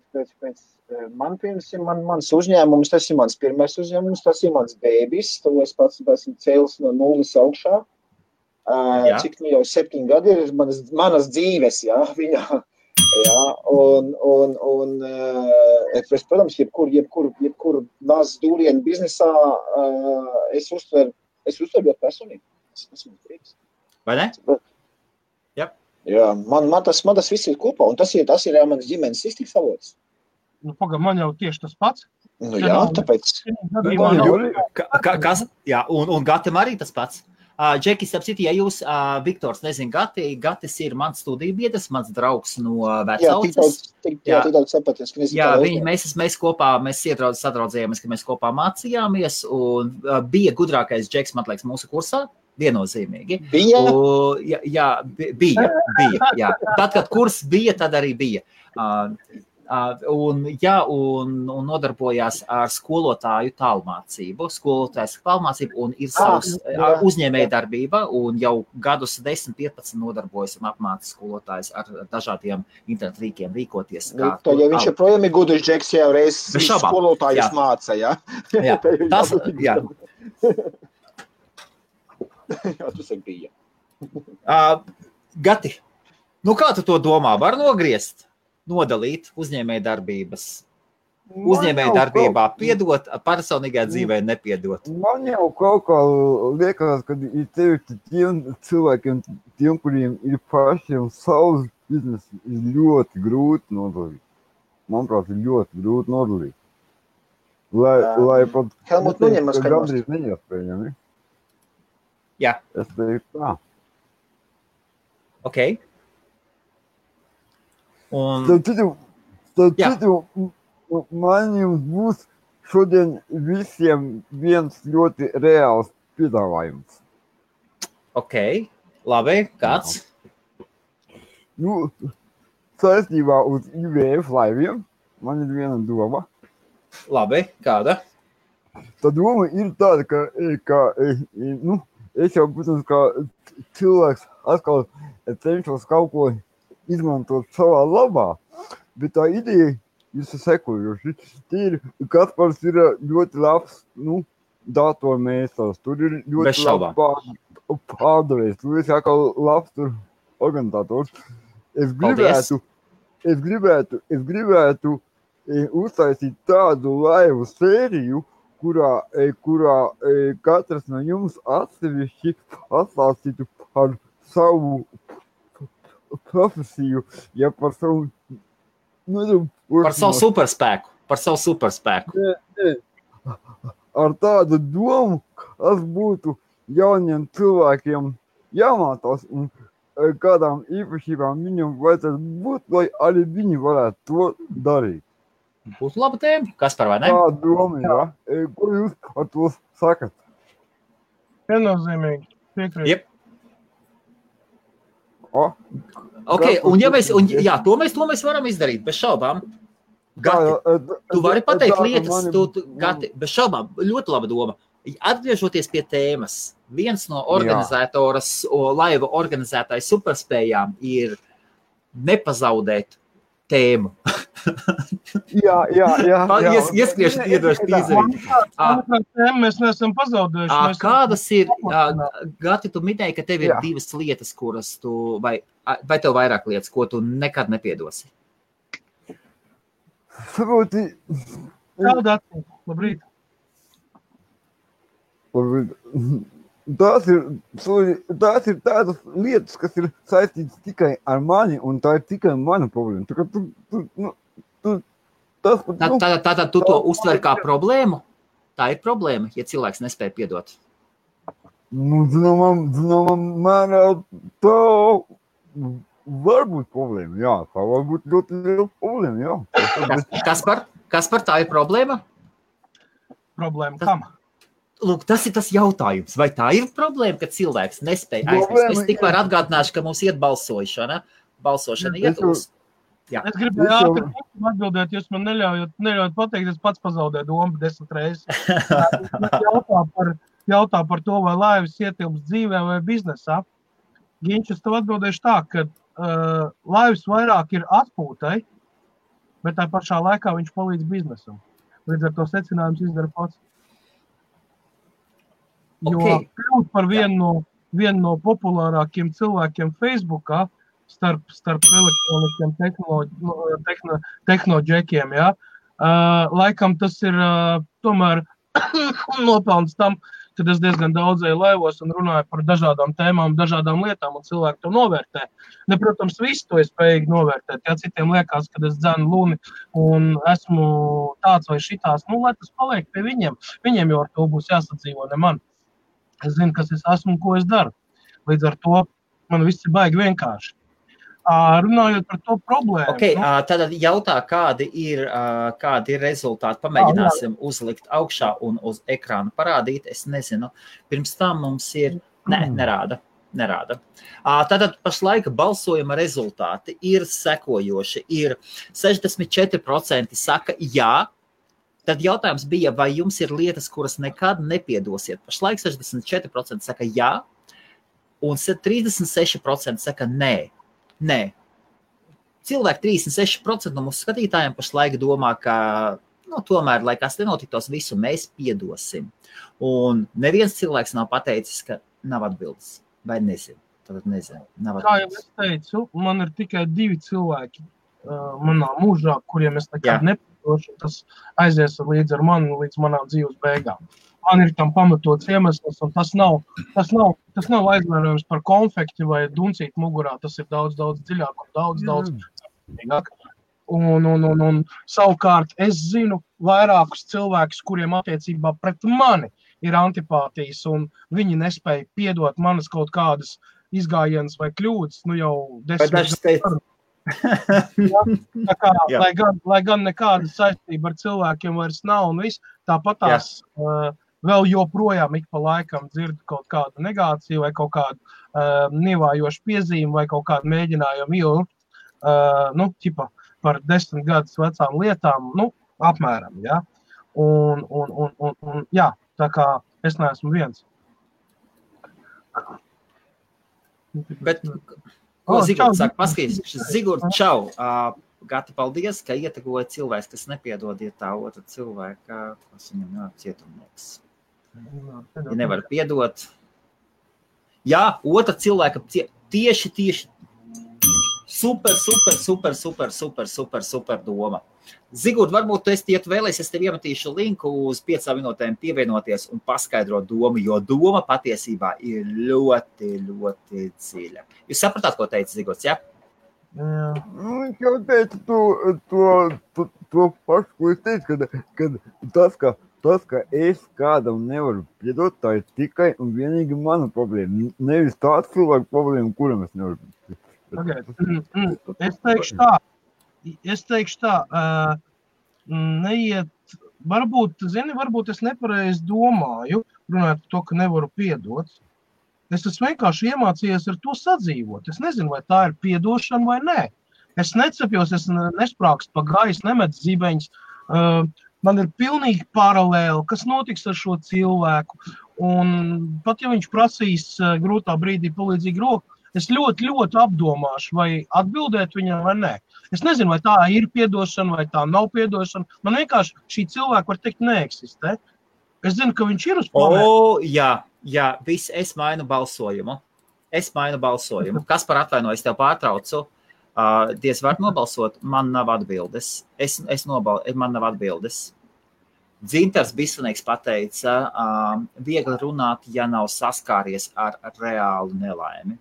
man piemēram, mans uzņēmums, tas ir mans pirmais uzņēmums, tas ir mans bēbis, to es pats esmu cēlis no nulles augšā. Cik jau 7 gadi ir manas dzīves, jā, viņā. Jā, un protams, jebkur nāc dūrienu biznesā, es uztveru ļoti personīgi. Esmu prieks. Vai ne? Jā, man tas viss ir kopā, un tas ir jā, manas ģimenes iztiks avots. Man jau tieši tas pats. Jā, tāpēc. Un Gatam arī tas pats. Džekis, apciti, ja jūs, Viktors, nezin, Gatis ir mans studiju biedrs, mans draugs no vecauces. Jā, daudz sapaties. Mēs kopā, sadraudzējāmies, ka mēs kopā mācījāmies, un bija gudrākais Džeks, man liekas, mūsu kursā, viennozīmīgi. Bija? Bija. Tad, kad kurs bija, tad arī bija. Un nodarbojās ar skolotāju tālmācību. Skolotājs tālmācību un ir savs uzņēmēja darbība, un jau gadus 10-15 nodarbojas un apmāca skolotājs ar dažādiem internetu rīkiem rīkoties. Ja viņš joprojām ir gudrs Džeks, jau reiz skolotājus māca, jā? Jā, tas, jā. Jā, tas ir bija. Gati, kā tu to domā? Var nogriezt? Nodalīt uzņēmēja darbības. Uzņēmēja darbībā piedot, personīgā dzīvē nepiedot. Man jau kaut kā liekas, ka ir tiem cilvēkiem, tiem, kuriem ir pašiem savs biznes, ir ļoti grūti nodalīt. Manuprāt, ir ļoti grūti nodalīt. Lai pat Helmut, gandrīz neiespējami. Jā. Es teiktu tā. Ok. Un... Tad citu, man jums būs šodien visiem viens ļoti reāls piedāvājums. Ok, labi, kāds? Nu, saistībā uz IVF laiviem man ir viena doma. Labi, kāda? Tā doma ir tāda, ka es jau, protams, kā cilvēks atkal cenšos kaut ko izmantot savā labā, bet tā ideja ir sekojoši. Kaspars ir ļoti labs, datormēstars, tur ir ļoti labs pārdevējs, tur ir atkal labs tur organizators. Es gribētu uztaisīt tādu laivu sēriju, kurā katrs no jums atsevišķi atstāstītu par savu profesiju, ja par savu... Par savu superspēku. Ar tādu domu, kas būtu jauniem cilvēkiem jāmācās un kādām īpašībām viņam vajadzētu būt, lai arī viņi varētu to darīt. Būtu laba tēma. Kaspar, vai ne? Tā doma, jā. Ko jūs ar to sakat? Viennozīmīgi. Piekrīt. Jep. Ok, un ja mēs, to mēs varam izdarīt, bez šaubām. Gati, tu vari pateikt lietas, Gati, bez šaubām, ļoti laba doma. Atgriežoties pie tēmas, viens no organizatoras, laiva organizētāju superspējām ir nepazaudēt tēmu. Jā. Ieskrieši iedoši tīzeri. Mēs neesam pazaudējuši. Kādas ir, Gati, tu minēji, ka tev ir divas lietas, kuras tu, vai tev vairāk lietas, ko tu nekad nepiedosi? Saproti. Labrīt. Tās ir tādas lietas, kas ir saistītas tikai ar mani, un tā ir tikai mana problēma. Tātad tu to uztver kā problēmu? Tā ir problēma, ja cilvēks nespēja piedot. Zināmā mērā tā var būt problēma, jā. Tā var būt ļoti liela problēma, jā. Kaspar, tā ir problēma? Problēma kam? Lūk, tas ir tas jautājums. Vai tā ir problēma, ka cilvēks nespēja aizmirst? Es tikmēr atgādināšu, ka mums iet balsošana. Balsošana iet uz. Jā. Es gribēju ātri atbildēt, jūs man neļaujat pateikt, es pats pazaudēju domu 10 reizes. Jautā par to, vai laivas ietilps dzīvē vai biznesā. Ginčs, es tev atbildēšu tā, ka laivas vairāk ir atpūtai, bet tā pašā laikā viņš palīdz biznesam. Līdz ar to secinājums izdara pats. Jo kļūt par vienu no populārākiem cilvēkiem Facebookā starp elektronikiem tehnoģekiem, jā. Laikam tas ir tomēr nopelns tam, kad es diezgan daudzēju laivos un runāju par dažādām tēmām, dažādām lietām, un cilvēki to novērtē. Protams, visu to ir spējīgi novērtēt. Ja citiem liekas, kad es dzenu luni un esmu tāds vai šitās, lai tas paliek pie viņiem. Viņiem jau ar to būs jāsadzīvo, ne man. Es zinu, kas es esmu un ko es daru. Līdz ar to man viss ir baigi vienkārši. Runājot par to problēmu. Ok, tad jautā, kādi ir rezultāti. Pamēģināsim uzlikt augšā un uz ekrāna parādīt. Es nezinu. Pirms tam mums ir... Nerāda. Tātad pašlaik balsojuma rezultāti ir sekojoši. Ir 64% saka jā. Tad jautājums bija, vai jums ir lietas, kuras nekad nepiedosiet. Pašlaik 64% saka jā, un 36% saka nē. Nē. Cilvēki 36% no mūsu skatītājiem pašlaik domā, ka tomēr, lai kas nenotiktos, visu mēs piedosim. Un neviens cilvēks nav pateicis, ka nav atbildes. Vai nezinu. Tad nezinu. Kā jau es teicu, man ir tikai 2 cilvēki manā mūžā, kuriem es nekad nepiedošu. Tas aizies līdz ar mani līdz manām dzīves beigām. Man ir tam pamatots iemesls, un tas nav aizvainojums par konfekti vai duncīt mugurā. Tas ir daudz dziļāk un daudz dziļāk. Un savukārt es zinu vairākus cilvēkus, kuriem attiecībā pret mani ir antipātijas, un viņi nespēja piedot manas kaut kādas izgājienas vai kļūdas, nu jau 10 gadu. Tā kā, lai gan nekāda saistība ar cilvēkiem vairs nav, un viss, tāpat tās vēl joprojām ik pa laikam dzirdu kaut kādu negāciju vai kaut kādu nievājošu piezīmi vai kaut kādu mēģinājumu ilgt, ķipa par 10 gadus vecām lietām, apmēram, ja. Un jā, tā kā es neesmu viens. Bet, ko Zigurds saka? Paskaties, Zigurds, čau! Gati, paldies, ka ietegoja cilvēks, kas nepiedod, ja tā otra cilvēka, kas viņam nav cietumnieks. Ja nevar piedot. Jā, otra cilvēka tieši super doma. Zigurd, varbūt tu esi vēlēs, es tev iemetīšu linku uz 5 minūtēm pievienoties un paskaidrot domu, jo doma patiesībā ir ļoti, ļoti dziļa. Jūs sapratāt, ko teica Zigurds, ja? Viņš jau teica to pašu, ko es teicu, kad tas, ka es kādam nevaru piedot, tā ir tikai un vienīgi mana problēma. Nevis tāds cilvēku problēma, kuram es nevaru piedot. Es teikšu tā, neiet, varbūt es nepareizi domāju, runājot par to, ka nevaru piedot. Es esmu vienkārši iemācījies ar to sadzīvot. Es nezinu, vai tā ir piedošana vai nē. Es necepjos, es nesprākstu pa gaisu, nemet zibeņus. Man ir pilnīgi paralēli, kas notiks ar šo cilvēku. Un pat ja viņš prasīs grūtā brīdī palīdzīgu roku, es ļoti, ļoti apdomāšu, vai atbildēt viņam vai nē. Es nezinu, vai tā ir piedošana, vai tā nav piedošana. Man vienkārši šī cilvēka, var teikt, neeksistē. Es zinu, ka viņš ir uz planētu. Jā, es mainu balsojumu. Kas par atvainoju, es tev pārtraucu. Diez var nobalsot, man nav atbildes. Man nav atbildes. Dzintars Bisanīgs pateica, viegli runāt, ja nav saskāries ar reālu nelaimi.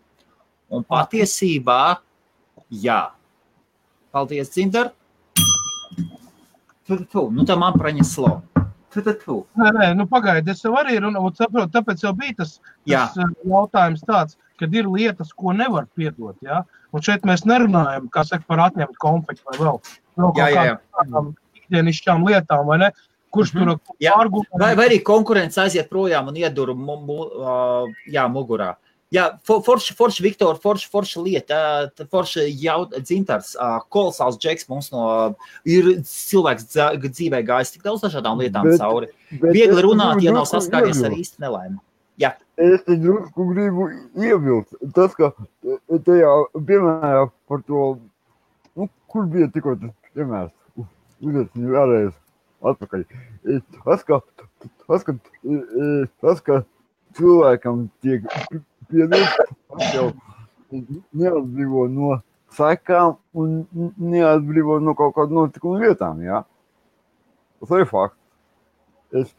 Un patiesībā, jā. Paldies, Dzintar. Tā man praņeslo. Nē, pagaidi, es jau arī saprotu, tāpēc jau bija tas jautājums tāds, kad ir lietas, ko nevar piedot, jā? Un šeit mēs nerunājam, kā saka, par atņemt konfektu vai vēl kaut kādām ikdienišķām lietām, vai ne? Kurš tur argumentē? Vai arī konkurence aiziet projām un iedur mugurā. Jā, forši Viktor, forši lieta, forši Dzintars, kolosāls džeks mums ir cilvēks dzīvē gājis tik daudz dažādām lietām cauri. Viegli runāt, ja nav saskāries ar īsti nelaimi. Jā. Es te drusku gribu iebilst. Tas, ka tajā piemērā par to, kur bija tikko tas piemērs, uzliecinu vēlreiz atpakaļ. Tas, ka cilvēkam tiek piedot, jau neatbrīvo no sekām un neatbrīvo no kaut kādu notikumu vietām, jā? Tas ir fakts.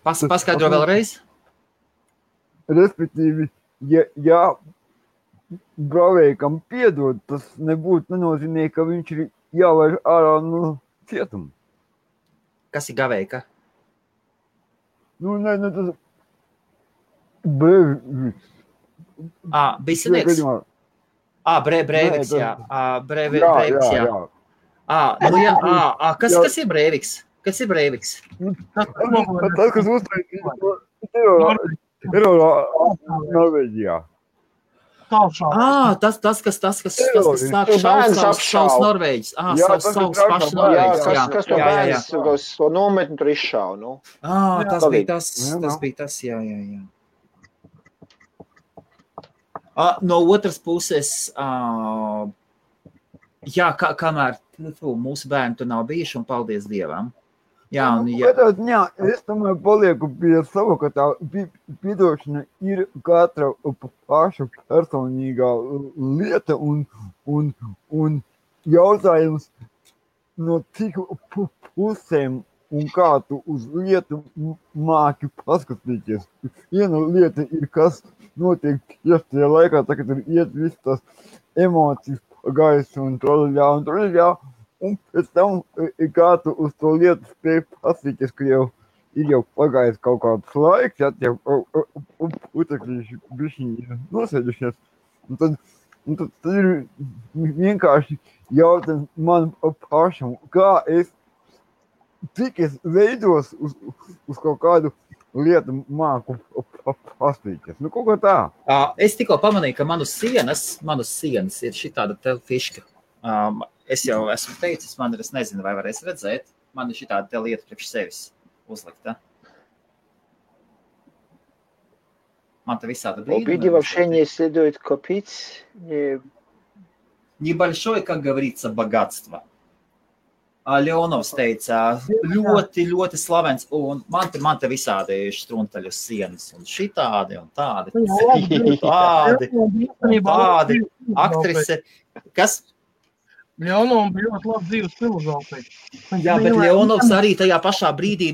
Paskaidro vēlreiz? Respektīvi, ja bravējkam piedod, tas nenozīmē, ka viņš ir jālaiž ārā no cietuma. Kas ir gavējka? Tas Breiviks. Bisanīgs? Breiviks, jā. Breiviks, jā. Kas ir Breiviks? Tas, kas uztaisīja Norvēģijā. Tas, kas sāk savus Norvēģis. Savus paši Norvēģis. Kas to bērns to nometni tur izšāva, nu? Tas bija tas, jā. No otras puses, kamēr mūsu bērni tur nav bijuši, un paldies Dievam. Es tomēr palieku pie sava, ka tā piedošana ir katra paša personīgā lieta un jautājums no cik pusēm un kā tu uz lietu māki paskatīties. Viena lieta ir, kas notiek tieši tajā laikā, tā, kad ir iet viss tās emocijas gaisu un troļļā, un pēc tam kā tu uz to lietu spēj paskatīties, ka jau ir jau pagājis kaut kāds laiks, ja tie putekļi bišķiņi nosēdušies. Un tad ir vienkārši jautājums man pašam, cik es veidos uz kaut kādu lietu māku paspīties. Nu, kaut kā tā. Es tikko pamanīju, ka manas sienas ir šitāda te fiška. Es jau esmu teicis, es nezinu, vai varēs redzēt. Man ir šitāda te lieta priekš sevis uzlikta. Man te visāda brīduma. Обиди вообще не следует копить. Небольшое, как говорится, богатство. Leonovs teica, ļoti, ļoti slavens, un man te visādi štruntaļu sienas, un šitādi, un tādi, tādi, aktrise, kas? Leonovs bija ļoti labi dzīves filozofija. Jā, bet Leonovs arī tajā pašā brīdī,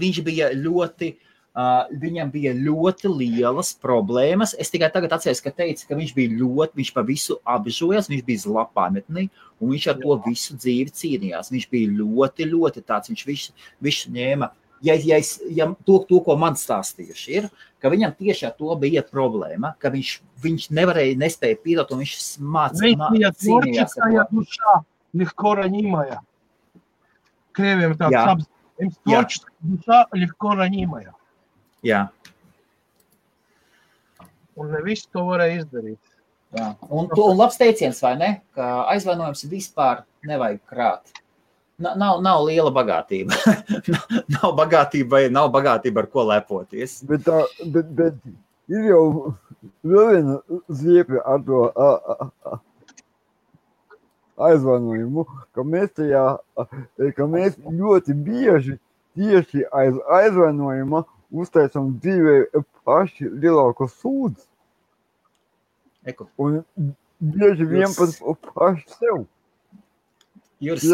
viņam bija ļoti lielas problēmas. Es tikai tagad atceros, ka teica, ka viņš pa visu apžojās, viņš bija zlapāmetnī, un viņš ar to visu dzīvi cīnījās. Viņš bija ļoti, ļoti tāds, viņš visu ņēma. Ja to, ko man stāstījuši ir, ka viņam tieši ar to bija problēma, ka viņš nespēja piedot, un viņš cīnījās ar to. Легко ранимая. Krieviem tāds apzīmējums. Tvorческая душа легко ранимая. Jā. Un ne visu to varēja izdarīt. Jā. Un labs teiciens, vai ne? Ka aizvainojums vispār nevajag krāt. Nav liela bagātība. nav bagātība, ar ko lepoties. Bet ir jau vēl viena ziepja ar to aizvainojumu, ka mēs ļoti bieži tieši aiz aizvainojuma uztaisam dzīvē paši lielāko sūdzi. Un bieži vien pat paši sev. Jūras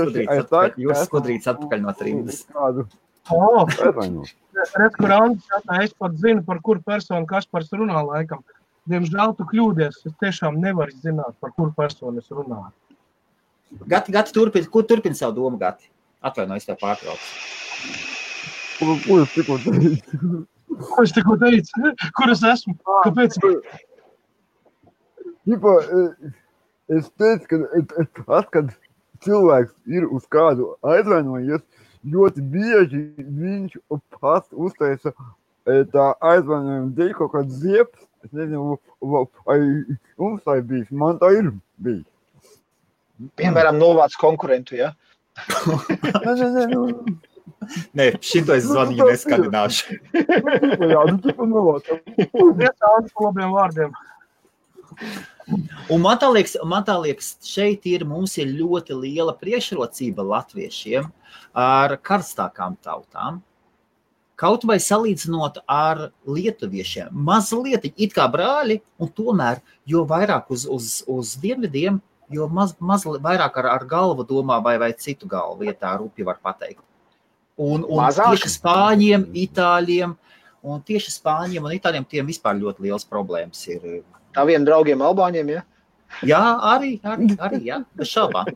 skudrīts atpakaļ no trīdas. Redz, kur Andis jātā, es pat zinu, par kuru personu Kaspars runā laikam. Diemžēl tu kļūdies, es tiešām nevaru zināt, par kuru personu es runāju. Gati, turpini savu domu, Gati. Atvainojies, tev pārtraucu. Ko es tikko teicu? Ko es tikko teicu? Kur es esmu? Kāpēc? Es teicu, ka kad cilvēks ir uz kādu aizvainojies, ļoti bieži viņš pats uztaisa tā aizvainojuma dēļ kaut kāds ziepes. Es nezinu, vai mums tā ir bijis. Man tā ir bijis. Piemēram, novāc konkurentu, ja? Nē, šito es zvaniņu neskandināšu. Jā, nu tipa novāc. Iesāns par labiem vārdiem. Un man tā liekas, šeit mums ir ļoti liela priekšrocība latviešiem ar karstākām tautām. Kaut vai salīdzinot ar lietuviešiem. Mazliet, it kā brāļi, un tomēr, jo vairāk uz dienvidiem, jo vairāk ar galvu domā vai citu galvu, ja tā rupi var pateikt. Un tieši Spāņiem, Itāļiem, un tiem vispār ļoti liels problēmas ir. Taviem draugiem Albāņiem, ja? Jā, arī, jā, bez šaubām.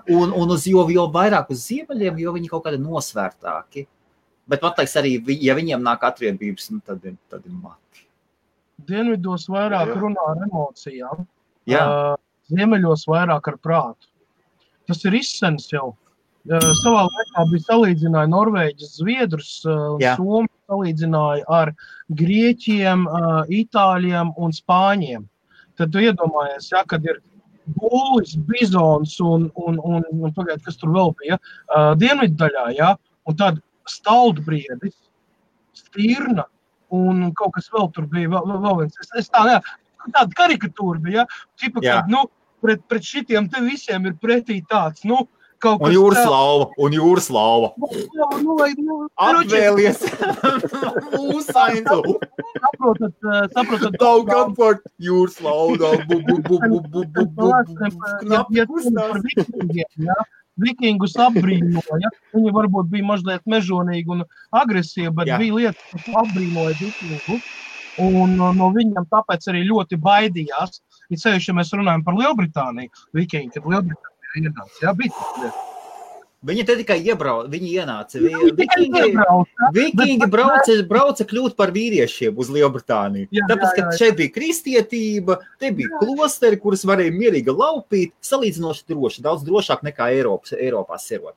Un jo vairāk uz ziemeļiem, jo viņi kaut kādi nosvērtāki. Bet man teiks arī, ja viņiem nāk atriebības, tad ir mati. Dienvidos vairāk runā ar emocijām. Jā. Ziemeļos vairāk ar prātu. Tas ir izsens jau. Savā laikā bija salīdzināja Norvēģis, Zviedrus un Somi salīdzināja ar Grieķiem, Itāļiem un Spāņiem. Tad tu iedomājies, ja, kad ir būlis, bizons un pagaid, kas tur vēl bija, dienvidu daļā, ja, un tad staldbriedis, stirna un kaut kas vēl tur bija, vēl viens. Es tāda karikatūra bija, ja? Tipa, kad, pret šitiem te visiem ir pretī tāds, kaut kas... Un jūraslauva. Apvēlies. Mūsainu. Saprotat. Daug apvart jūraslauva. Vikingus apbrīnoja. Viņi varbūt bija mazliet mežonīgi un agresīvi, bet bija lietas, kas apbrīnoja vikingu. Un no viņiem tāpēc arī ļoti baidījās. Ir sevišķi, ja mēs runājam par Lielbritāniju, vikingi, kad Lielbritānija ienāca. Jā, bija tas lietas. Viņi te tikai viņi ienāca. Vikingi brauca kļūt par vīriešiem uz Lielbritāniju. Tāpēc, ka šeit bija kristietība, te bija klosteri, kuras varēja mierīgi laupīt, salīdzinoši droši, daudz drošāk nekā Eiropā serot.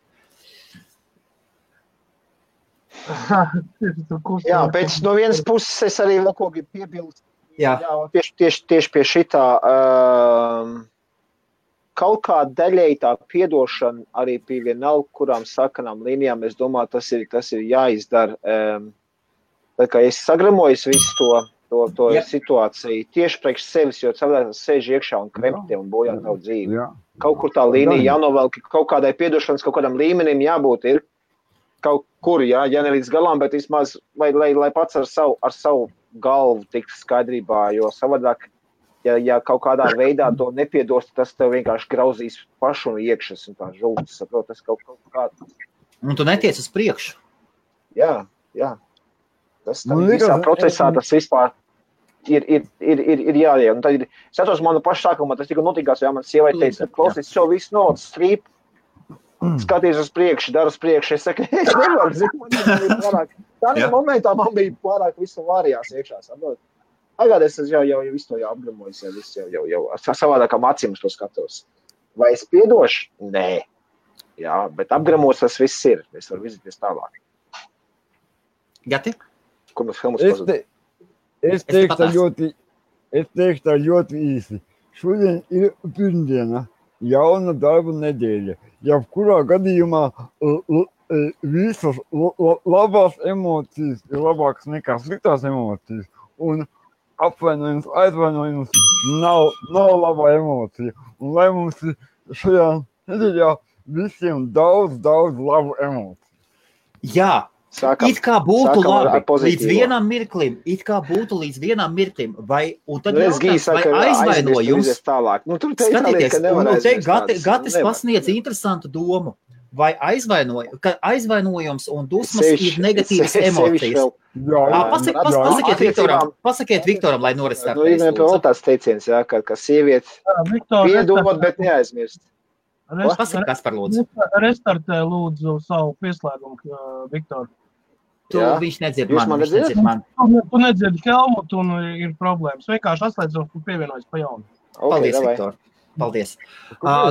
Jā, pēc no vienas puses es arī vēl ko gribu piebilst. Jā, tieši pie šitā kaut kā daļēji tā piedošana arī pie vienalga, kurām sakanām līnijām, es domāju, tas ir jāizdara. Tā kā es sagramojos visu to situāciju tieši priekš sevis, jo cilvēks sēž iekšā un krempti un bojā tavu dzīvi. Kaut kur tā līnija jānovelk, kaut kādai piedošanas, kaut kādam līmenim jābūt ir kaut kur, ja ne līdz galām, bet vismaz, lai pats ar savu galvu tiktu skaidrībā, jo savādāk, ja kaut kādā veidā to nepiedos, tas tev vienkārši grauzīs pašu un iekšas un tā žultas, saprot, tas kaut kā. Un tu netiec uz priekšu. Jā. Tas visā procesā tas vispār ir jāiet. Un tad es atceros manu pašu sākumā, tas tika notikās, ja man sievai teica, klausies, šo visu nodas strīp, skaties uz priekšu, dar uz priekšu. Es saku, es nevaru, zinu, tādā momentā man bija pārāk visu vārījās iekšā, saprot. Agād es jau visu to apgramojos, jau savādākām acīm to skatos. Vai es piedošu? Nē. Jā, bet apgramos tas viss ir. Es varu virzīties tālāk. Gati? Kur mums filmas pazūd? Es teikšu tā ļoti īsi. Šodien ir pirmdiena, jauna darba nedēļa. Jebkurā gadījumā visas labās emocijas ir labākas nekā sliktās emocijas. Un apvainojums, aizvainojums nav laba emocija. Un lai mums šajā nedēļā visiem daudz labu emociju. Jā, it kā būtu labi līdz vienam mirklim, vai, un tad jautājums, vai aizvainojums, skatieties, un te Gatis pasniedz interesantu domu, vai aizvainojums un dusmas ir negatīvas emocijas. Pasakiet Viktoram, lai norestartēs. Vēl tāds teiciens, ka sievietes piedod, bet neaizmirst. Pasaka, kas par lūdzu. Restartē lūdzu savu pieslēgumu, Viktor. Viņš nedzird man. Tu nedzird Helmutu un ir problēmas. Vienkārši atslēdz un pievienojas pa jaunu. Paldies, Viktor. Paldies.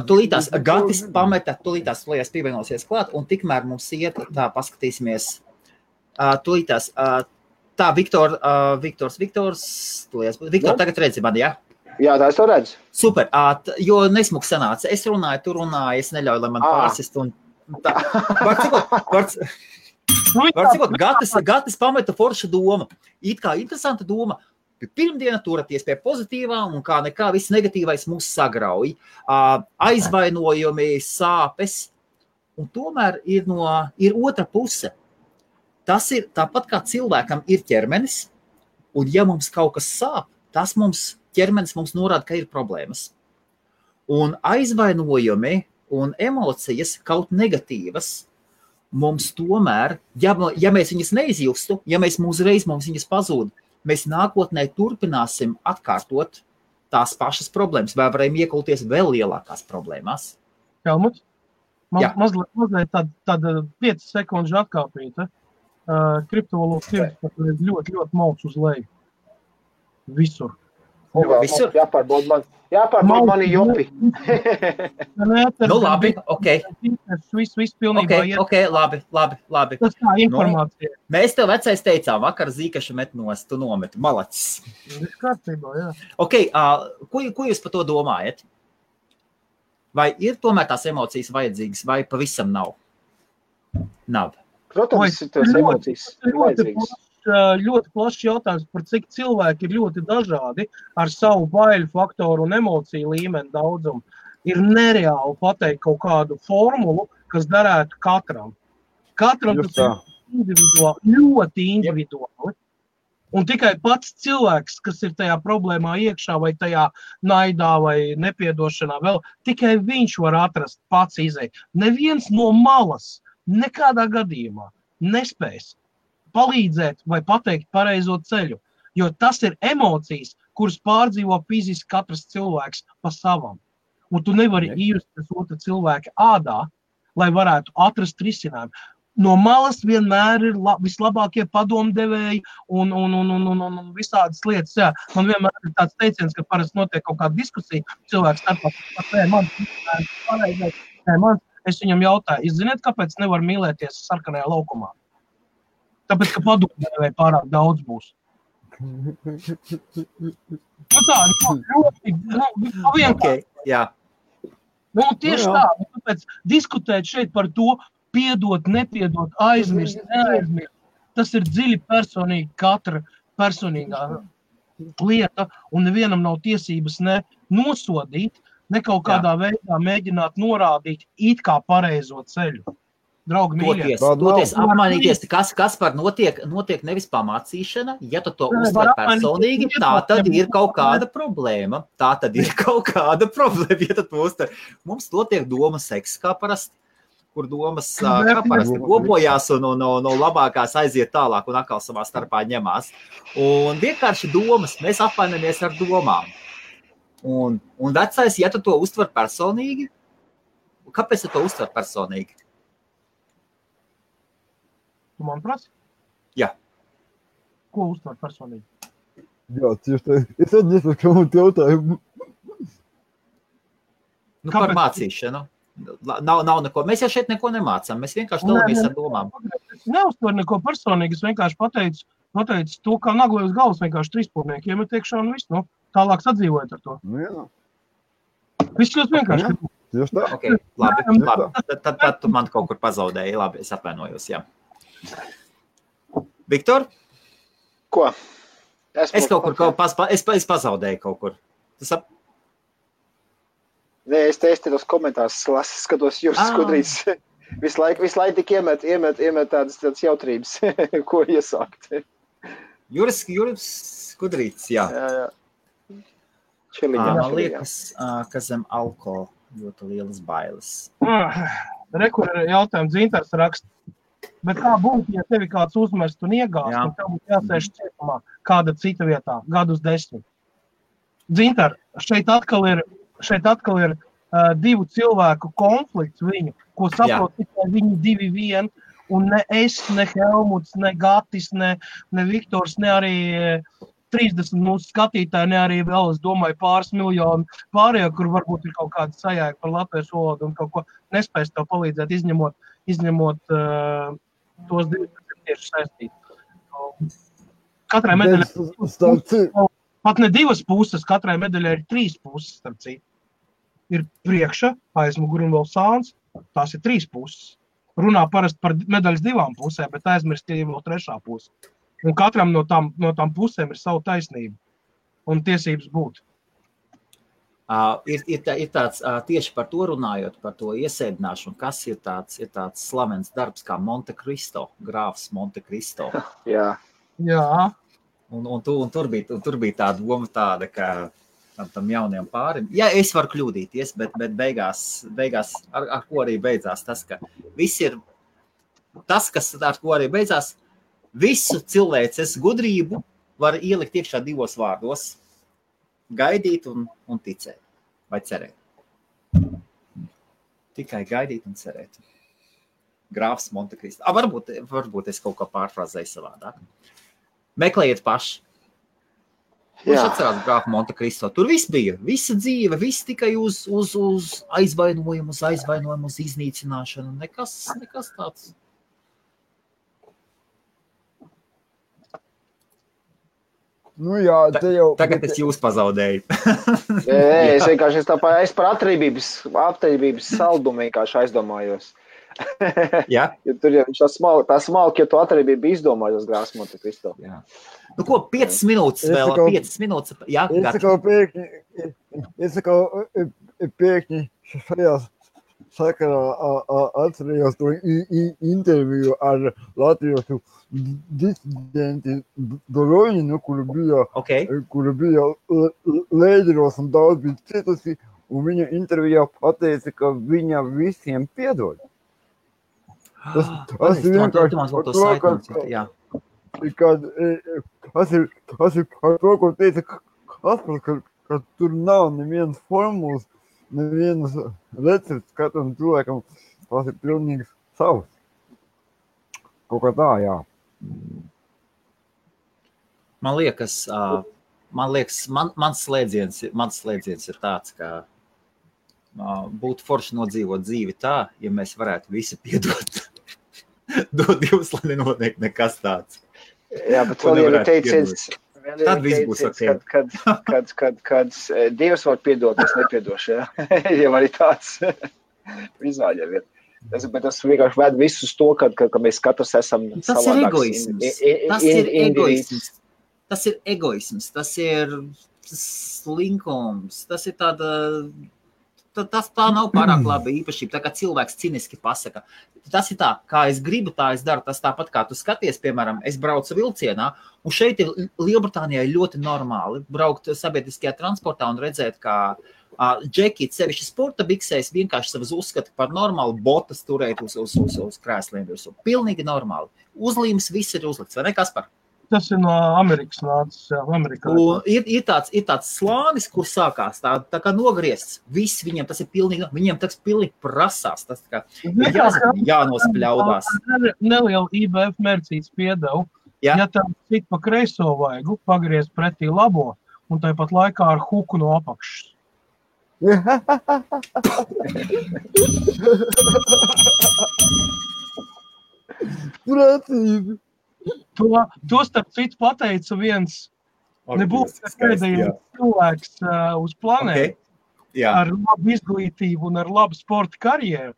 Tūlītās Gatis pameta, tūlītās Lejas pievienosies klāt, un tikmēr mums iet, tā paskatīsimies. Tūlītās, tā Viktor, tagad redzi mani, jā? Jā, tā es to redzu. Super, jo nesmuks sanāca. Es runāju, tu runāji, es neļauju, lai man pārsist. Un tā. Var cikot, Gatis pameta forša doma. It kā interesanta doma. Pirmdiena turaties pie pozitīvā un kā nekā viss negatīvais mūs sagrauj. Aizvainojumi, sāpes. Un tomēr ir otra puse. Tas ir tāpat kā cilvēkam ir ķermenis. Un ja mums kaut kas sāp, ķermenis mums norāda, ka ir problēmas. Un aizvainojumi un emocijas kaut negatīvas mums tomēr, ja mēs viņas neizjustu, ja mēs uzreiz mums viņas pazūd, mēs nākotnē turpināsim atkārtot tās pašas problēmas, vai varam iekulties vēl lielākās problēmās. Helmut, mazliet tāda 5 sekundžu atkāpīta. Kriptovalūtas tirgus ļoti malts uz leju. Visur. Visur? Jāpārbauda mani jopi. Nu labi, ok. Viss pilnībā iet. Ok, labi. Tas tā informācija. Mēs tev vecais teicām, vakar zīkašu met nost, tu nometi, malacis. Viss kārtībā, jā. Ok, ko jūs par to domājat? Vai ir tomēr tās emocijas vajadzīgas, vai pavisam nav? Nav. Protams, tās emocijas ir vajadzīgas. Ļoti plašs jautājums, par cik cilvēki ir ļoti dažādi ar savu baiļu faktoru un emociju līmeni daudzumu. Ir nereāli pateikt kaut kādu formulu, kas darētu katram. Katram tas ir individuāli, ļoti individuāli. Un tikai pats cilvēks, kas ir tajā problēmā iekšā vai tajā naidā vai nepiedošanā vēl, tikai viņš var atrast pats izēju. Neviens no malas nekādā gadījumā nespēs palīdzēt vai pateikt pareizo ceļu, jo tas ir emocijas, kuras pārdzīvo fiziski katrs cilvēks pa savam. Un tu nevari iejusties otra cilvēka ādā, lai varētu atrast risinājumu. No malas vienmēr ir vislabākie padomdevēji un visādas lietas. Jā. Man vienmēr ir tāds teiciens, ka parasti notiek kaut kāda diskusija cilvēks starpā. Es viņam jautāju, jūs zināt, kāpēc nevar mīlēties sarkanajā laukumā? Tāpēc, ka padomdevēji pārāk daudz būs. Tieši tā. Tāpēc diskutēt šeit par to, piedot, nepiedot, aizmirst, neaizmirst. Tas ir dziļi personīgi katra personīgā lieta, un nevienam nav tiesības ne nosodīt, ne kaut kādā veidā mēģināt norādīt it kā pareizo ceļu. Draugi mīļie. Toties apmainīties, kas par notiek nevis pamācīšana, ja tu to uztver personīgi, tā tad ir kaut kāda problēma. Ja tu uztver. Mums notiek doma seks, kā parasti. Kur domas parasti kopojās un no labākās aiziet tālāk un atkal savā starpā ņemās. Un vienkārši domas, mēs apvainamies ar domām. Un vecais, ja tu to uztver personīgi, kāpēc tu to uztver personīgi? Tu man prasi? Jā. Ko uztver personīgi? Jā, tieši tā. Es atnesu jautājumu. Par mācīšanu. Nav neko. Mēs jau šeit neko nemācām. Mēs vienkārši dalamies ar domām. Es neuztveru neko personīgi. Es vienkārši pateicu to, kā nagloju uz galvas vienkārši trīspūrnieki iemet iekšā un viss. Tālāk sadzīvojot ar to. Jā. Viss ļoti vienkārši. Tieši tā. Ok, labi. Tad tu man kaut kur pazaudēji. Labi, es atvainojos, jā. Viktor? Ko? Es kaut kur es pazaudēju kaut kur. Nē, es te tos komentārus skatos Juris Skudrīts. Visu laiku tik iemet tādas jautrības, ko iesākt. Juris Skudrīts, jā. Man liekas, ka zem alkohola ļoti lielas bailes. Rekur ir jautājums, Dzintars raksta. Bet kā būtu, ja tevi kāds uzmest un iegāst, un tev būtu jāsēž cietumā kāda cita vietā, gadus 10? Dzintar, šeit atkal ir divu cilvēku konflikts viņu, ko saprot tikai viņi 2-1, un ne es, ne Helmuts, ne Gatis, ne Viktors, ne arī 30 mūsu skatītāji, ne arī vēl, es domāju, pāris miljoni pārējā, kur varbūt ir kaut kāda sajēga par latviešu valodu un kaut ko nespēs tev palīdzēt, izņemot tos divus, kas ir tieši saistīti. Katrai medaļai pat ne divas puses, katrai medaļai ir 3 puses, starp citu. Ir priekša, aizmuguri un vēl sāns, tās ir 3 puses. Runā parasti par medaļas 2 pusēm, bet aizmirst, ka ir vēl 3. puse. Un katram no tām pusēm ir savu taisnību un tiesības būt. Ir tāds, tieši par to runājot, par to iesēdināšanu, kas ir tāds slavens darbs kā Monte Cristo, grāfs Monte Cristo. Jā. Un tur bija tā doma tāda, ka tam jauniem pārim. Jā, es varu kļūdīties, bet beigās ar ko arī beidzās tas, ka viss ir tas, kas ar ko arī beidzās, visu cilvēces gudrību var ielikt iekšā 2 vārdos. Gaidīt un ticēt. Vai cerēt. Tikai gaidīt un cerēt. Grāfs Monte Cristo. Varbūt es kaut ko pārfrāzēju savādāk. Meklējiet paši. Viņš atcerās grāfu Monte Cristo. Tur viss bija. Visa dzīve, viss tikai uz aizvainojumu, uz iznīcināšanu. Nekas tāds. Nu jā, Tagad es jūs pazaudēju. Es vienkārši es par atribības saldumu vienkārši aizdomājos. Jā? Jo tur jau viņš tā smalki, ja tu atribību izdomājos grāfs Monte Cristo. Jā. Nu ko, 5 minūtes vēl, 5 minūtes. Jā, es pēkņi šajā sakarā atcerējos to interviju ar latviešu disidenti Doroņinu, kura bija Lēģeros un daudz bija citusi, un viņa intervijā pateica, ka viņa visiem piedod. Tas ir vienkārši par to, ko teica Kaspars, ka tur nav nevienas formulas, nevienas recepts katram cilvēkam tas ir pilnīgi savs. Kaut kā tā, jā. Man liekas, mans slēdziens ir tāds, ka būtu forši nodzīvot dzīvi tā, ja mēs varētu visi piedot. Dod Dievs, lai nenotiek nekas tāds. Jā, bet vēl jau ir teiciens, tad viss būs ok. kad Dievs var piedot, es nepiedošu, jā. Jau arī tāds izvēļ jau ir. Bet tas vienkārši ved visus to, ka mēs katrs esam savādāks. Tas ir egoisms, tas ir slinkums, tas ir tā nav pārāk laba īpašība, tā kā cilvēks ciniski pasaka. Tas ir tā, kā es gribu, tā es daru, tas tāpat kā tu skaties, piemēram, es braucu vilcienā, un šeit ir Lielbritānijā ļoti normāli braukt sabiedriskajā transportā un redzēt, kā džeki, sevišķi sporta biksēs, vienkārši savas uzskata par normālu botas turēt uz krēsliem. Pilnīgi normāli. Uzlīmes viss ir uzlikts, vai ne, Kaspar? Tas ir no Amerikas nācis, jā, Amerikā. Ir tāds slānis, kur sākās tā kā nogriezts. Viss viņiem tas ir pilnīgi, viņiem tas pilnīgi prasās. Tas kā jānospļaudās. Neliela IBF mērcīts piedevu. Ja tam cik pa kreiso vaigu, pagriez pretī labo, un tāpat laikā ar huku no apakšas. Precīzi. To starp citu pateica viens nebūs pēdējais cilvēks uz planētu ar labu izglītību un ar labu sporta karjeru.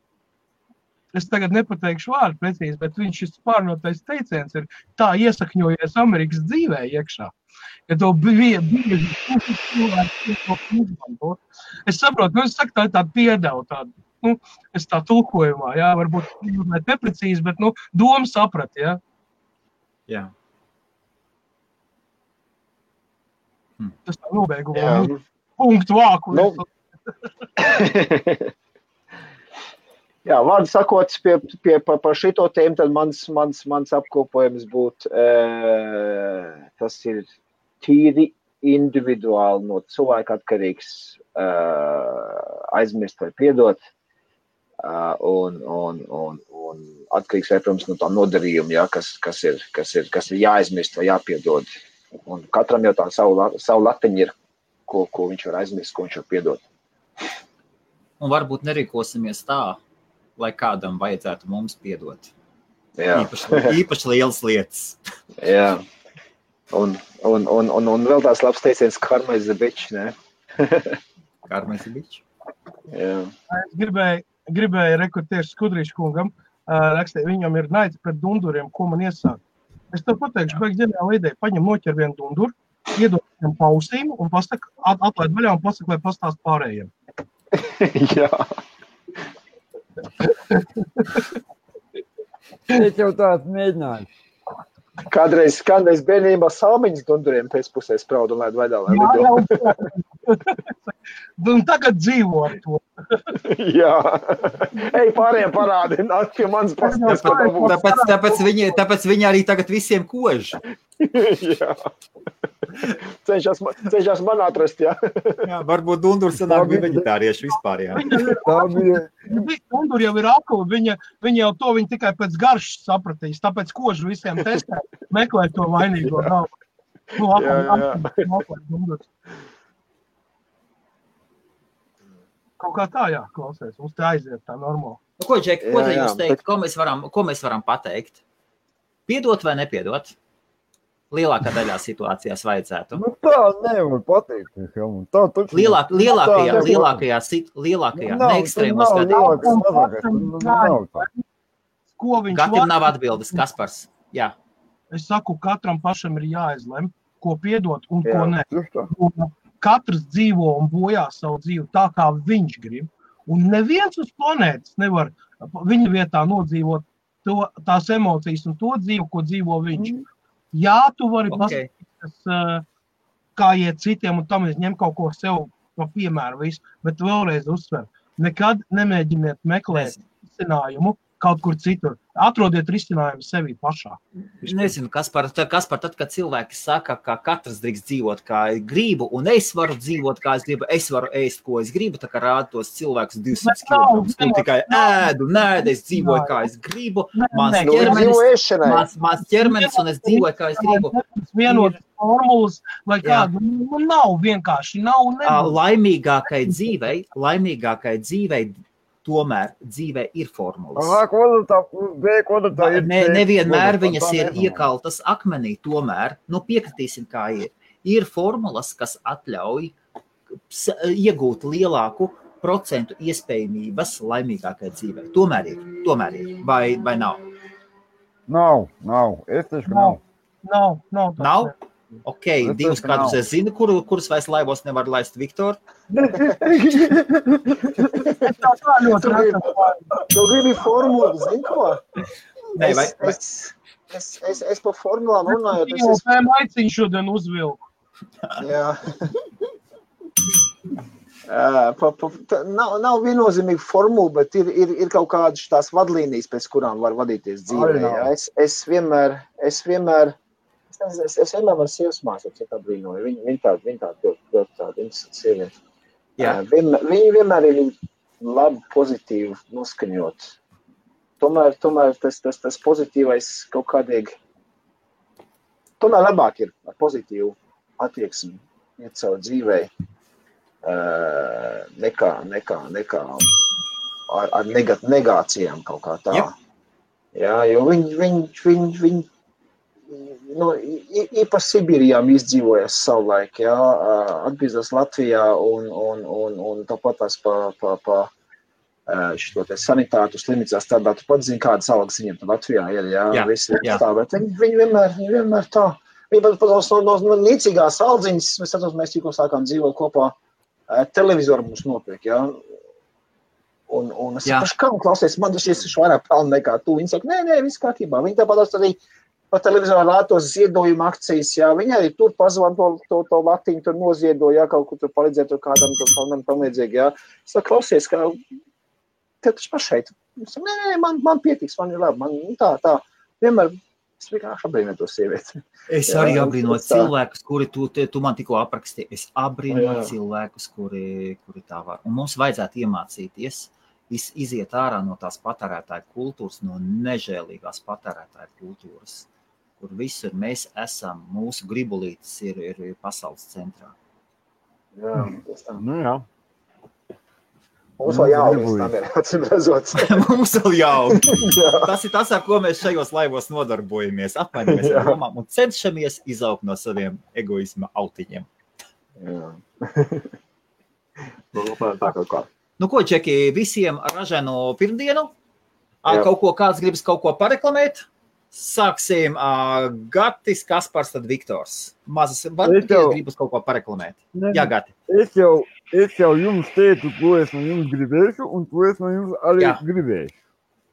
Es tagad nepateikšu vārdu precīzi, bet viņš šis pārnotais teiciens ir tā iesakņojies Amerikas dzīvē iekšā. Ja to bija cilvēki, es saprotu, es saku, tā ir tāda piedevu, tāda, es tā tulkojumā, jā, varbūt neprecīzi, bet, doma saprat, jā. Jā. Tas tā nobeigumā. Punktu vāku. Jā, vārdu sakot, par šito tēmu, tad mans apkopojums būtu, tas ir tīri individuāli no cilvēka atkarīgs, aizmirst vai piedot. Un atkarīgs, protams, no tā nodarījuma, jā, kas ir jāaizmirst vai jāpiedod. Un katram jau tā savu latiņu ir, ko viņš var aizmirst, ko viņš var piedot. Un varbūt nerīkosimies tā, lai kādam vajadzētu mums piedot. Jā. Īpaši lielas lietas. Jā. Un vēl tās labs teiciens, karma is a bitch, ne? Karma is a bitch. Jā. Es gribēju rekrutiešu Skudrīšu kungam, rakstīt, viņam ir naids pret dunduriem, ko man iesāk. Es tev pateikšu, beig ģeniāla ideja, paņem noķer vienu dunduru, iedod viņam pausīm un atlaid vaļā un pasaka, lai pastāst pārējiem. Jā. Es jau tāds mēģināju. Kādreiz bērnībā salmiņas dunduriem pēcpusē spraudu un laid vaļā, lai lido. Un tagad dzīvo ar to. Jā. Ej, pārējiem parādi, nāk pie manas pasties, ko tā būs. Tāpēc viņi arī tagad visiem kož. Jā. Cenšas man atrast, jā. Jā, varbūt Dundur sanāk bija veģetārieši vispār, jā. Dundur jau ir akli, viņa jau to viņa tikai pēc garšas sapratīs, tāpēc kožu visiem testē, meklē to vainīgo galvu. Dundurs. Kaut kā tā, jā, klausies, mums te aiziet tā normāli. Ko, Džek, ko te jūs teikt, ko mēs varam pateikt? Piedot vai nepiedot? Lielākā daļā situācijās vajadzētu. Tā nevar pateikt. Lielākajā neekstrēmos gadījumos. Katram nav atbildes, Kaspars. Jā. Es saku, katram pašam ir jāizlem, ko piedot un ko ne. Katrs dzīvo un bojā savu dzīvi tā, kā viņš grib. Un neviens uz planētas nevar viņa vietā nodzīvot tās emocijas un to dzīvi, ko dzīvo viņš. Jā, tu vari pasakīt, kā iet citiem, un tam es ņem kaut ko sev pa piemēru visu, bet vēlreiz uzsver. Nekad nemēģiniet meklēt izcinājumu kaut kur citur. Atrodiet risinājumu sevi pašā. Nezinu, Kaspar, tad, kad cilvēki saka, ka katrs drīkst dzīvot, kā gribu, un es varu dzīvot, kā es gribu, es varu ēst, ko es gribu, tā kā rāda tos cilvēkus 200 kg, un tikai ēdu, es dzīvoju, kā es gribu, mans ķermenis, un es dzīvoju, kā es gribu. Vienotas formulas, vai kādu, nav vienkārši, nav. Laimīgākai dzīvei, tomēr dzīvē ir formulas. Nevienmēr viņas ir iekaltas akmenī, tomēr, piekritīsim, kā ir. Ir formulas, kas atļauj iegūt lielāku procentu iespējamības laimīgākai dzīvē. Tomēr ir. Vai nav? Nav. Es teikšu, ka nav. Nav? Ok, divus kādus es zinu, kurus vairs laivos nevar laist Viktor. Tu gribi formulu, zini ko? Nē, Es pa formulām runājot. Es maiciņu šodien uzvilku. Jā. Nav viennozīmīgi formula, bet ir kaut kādas tās vadlīnijas, pēc kurām var vadīties dzīvē. Es vienmēr varu sievas māsas, ja tā brīnoju. Viņa tāda interesanta sieviete. Viņa vienmēr ir labi, pozitīvi noskaņot. Tomēr tas pozitīvais kaut kādīgi, tomēr labāk ir ar pozitīvu attieksmi iet savu dzīvē, nekā ar negācijām kaut kā tā. Jā, jo viņi īpaši Sibīrijām izdzīvojas savulaik, atgriežas Latvijā un tāpat tās pa šito te sanitātu slimnīcā strādā. Tu pat zini, kādas algas viņiem Latvijā ir, visi tā, bet viņi vienmēr tā. Viņi pat no niecīgās aldziņas, mēs tikko sākām dzīvot kopā, televizoru mums nopirk, Un es saku, kā klausies, man šis vairāk pelna nekā tu. Viņi saka, nē, viss kārtībā. Viņi tāpat arī pa televizoru rātos ziedojumu akcijas, viņi arī tur pazvan to latiņu, tur noziedoja, kaut kur tur palīdzēt tur kādam, tur tam līdzīgi, Es saku, klausies, kā tev taču pašai. Es saku, nē, man pietiks, man ir labi, man tā. Vienmēr es vienkārši abrīnoju to sievieti. Es arī abrīnoju cilvēkus, kuri tu man tikko aprakstīji. Es abrīnoju cilvēkus, kuri tā var. Un mums vajadzētu iemācīties iziet ārā no tās patērētāju kultūras, no nežēlīgās patērētāju kultūras, kur visur mēs esam, mūsu gribulītes ir pasaules centrā. Jā, tas tā. Jā. Mums vēl jauni, tam ir atsimrezot. Mums vēl jauni. Tas ir tas, ar ko mēs šajos laivos nodarbojamies, apmainamies ar domām un cenšamies izaugt no saviem egoisma autiņiem. Jā. Tā kaut kā. Ko, Čeki, visiem ražēno pirmdienu? Kāds gribas kaut ko pareklamēt? Sāksim Gatis, Kaspars, tad Viktors. Gribas kaut ko pareklamēt. Jā, Gati. Es jau jums teicu, ko es no jums gribēšu, un ko es no jums arī gribēšu.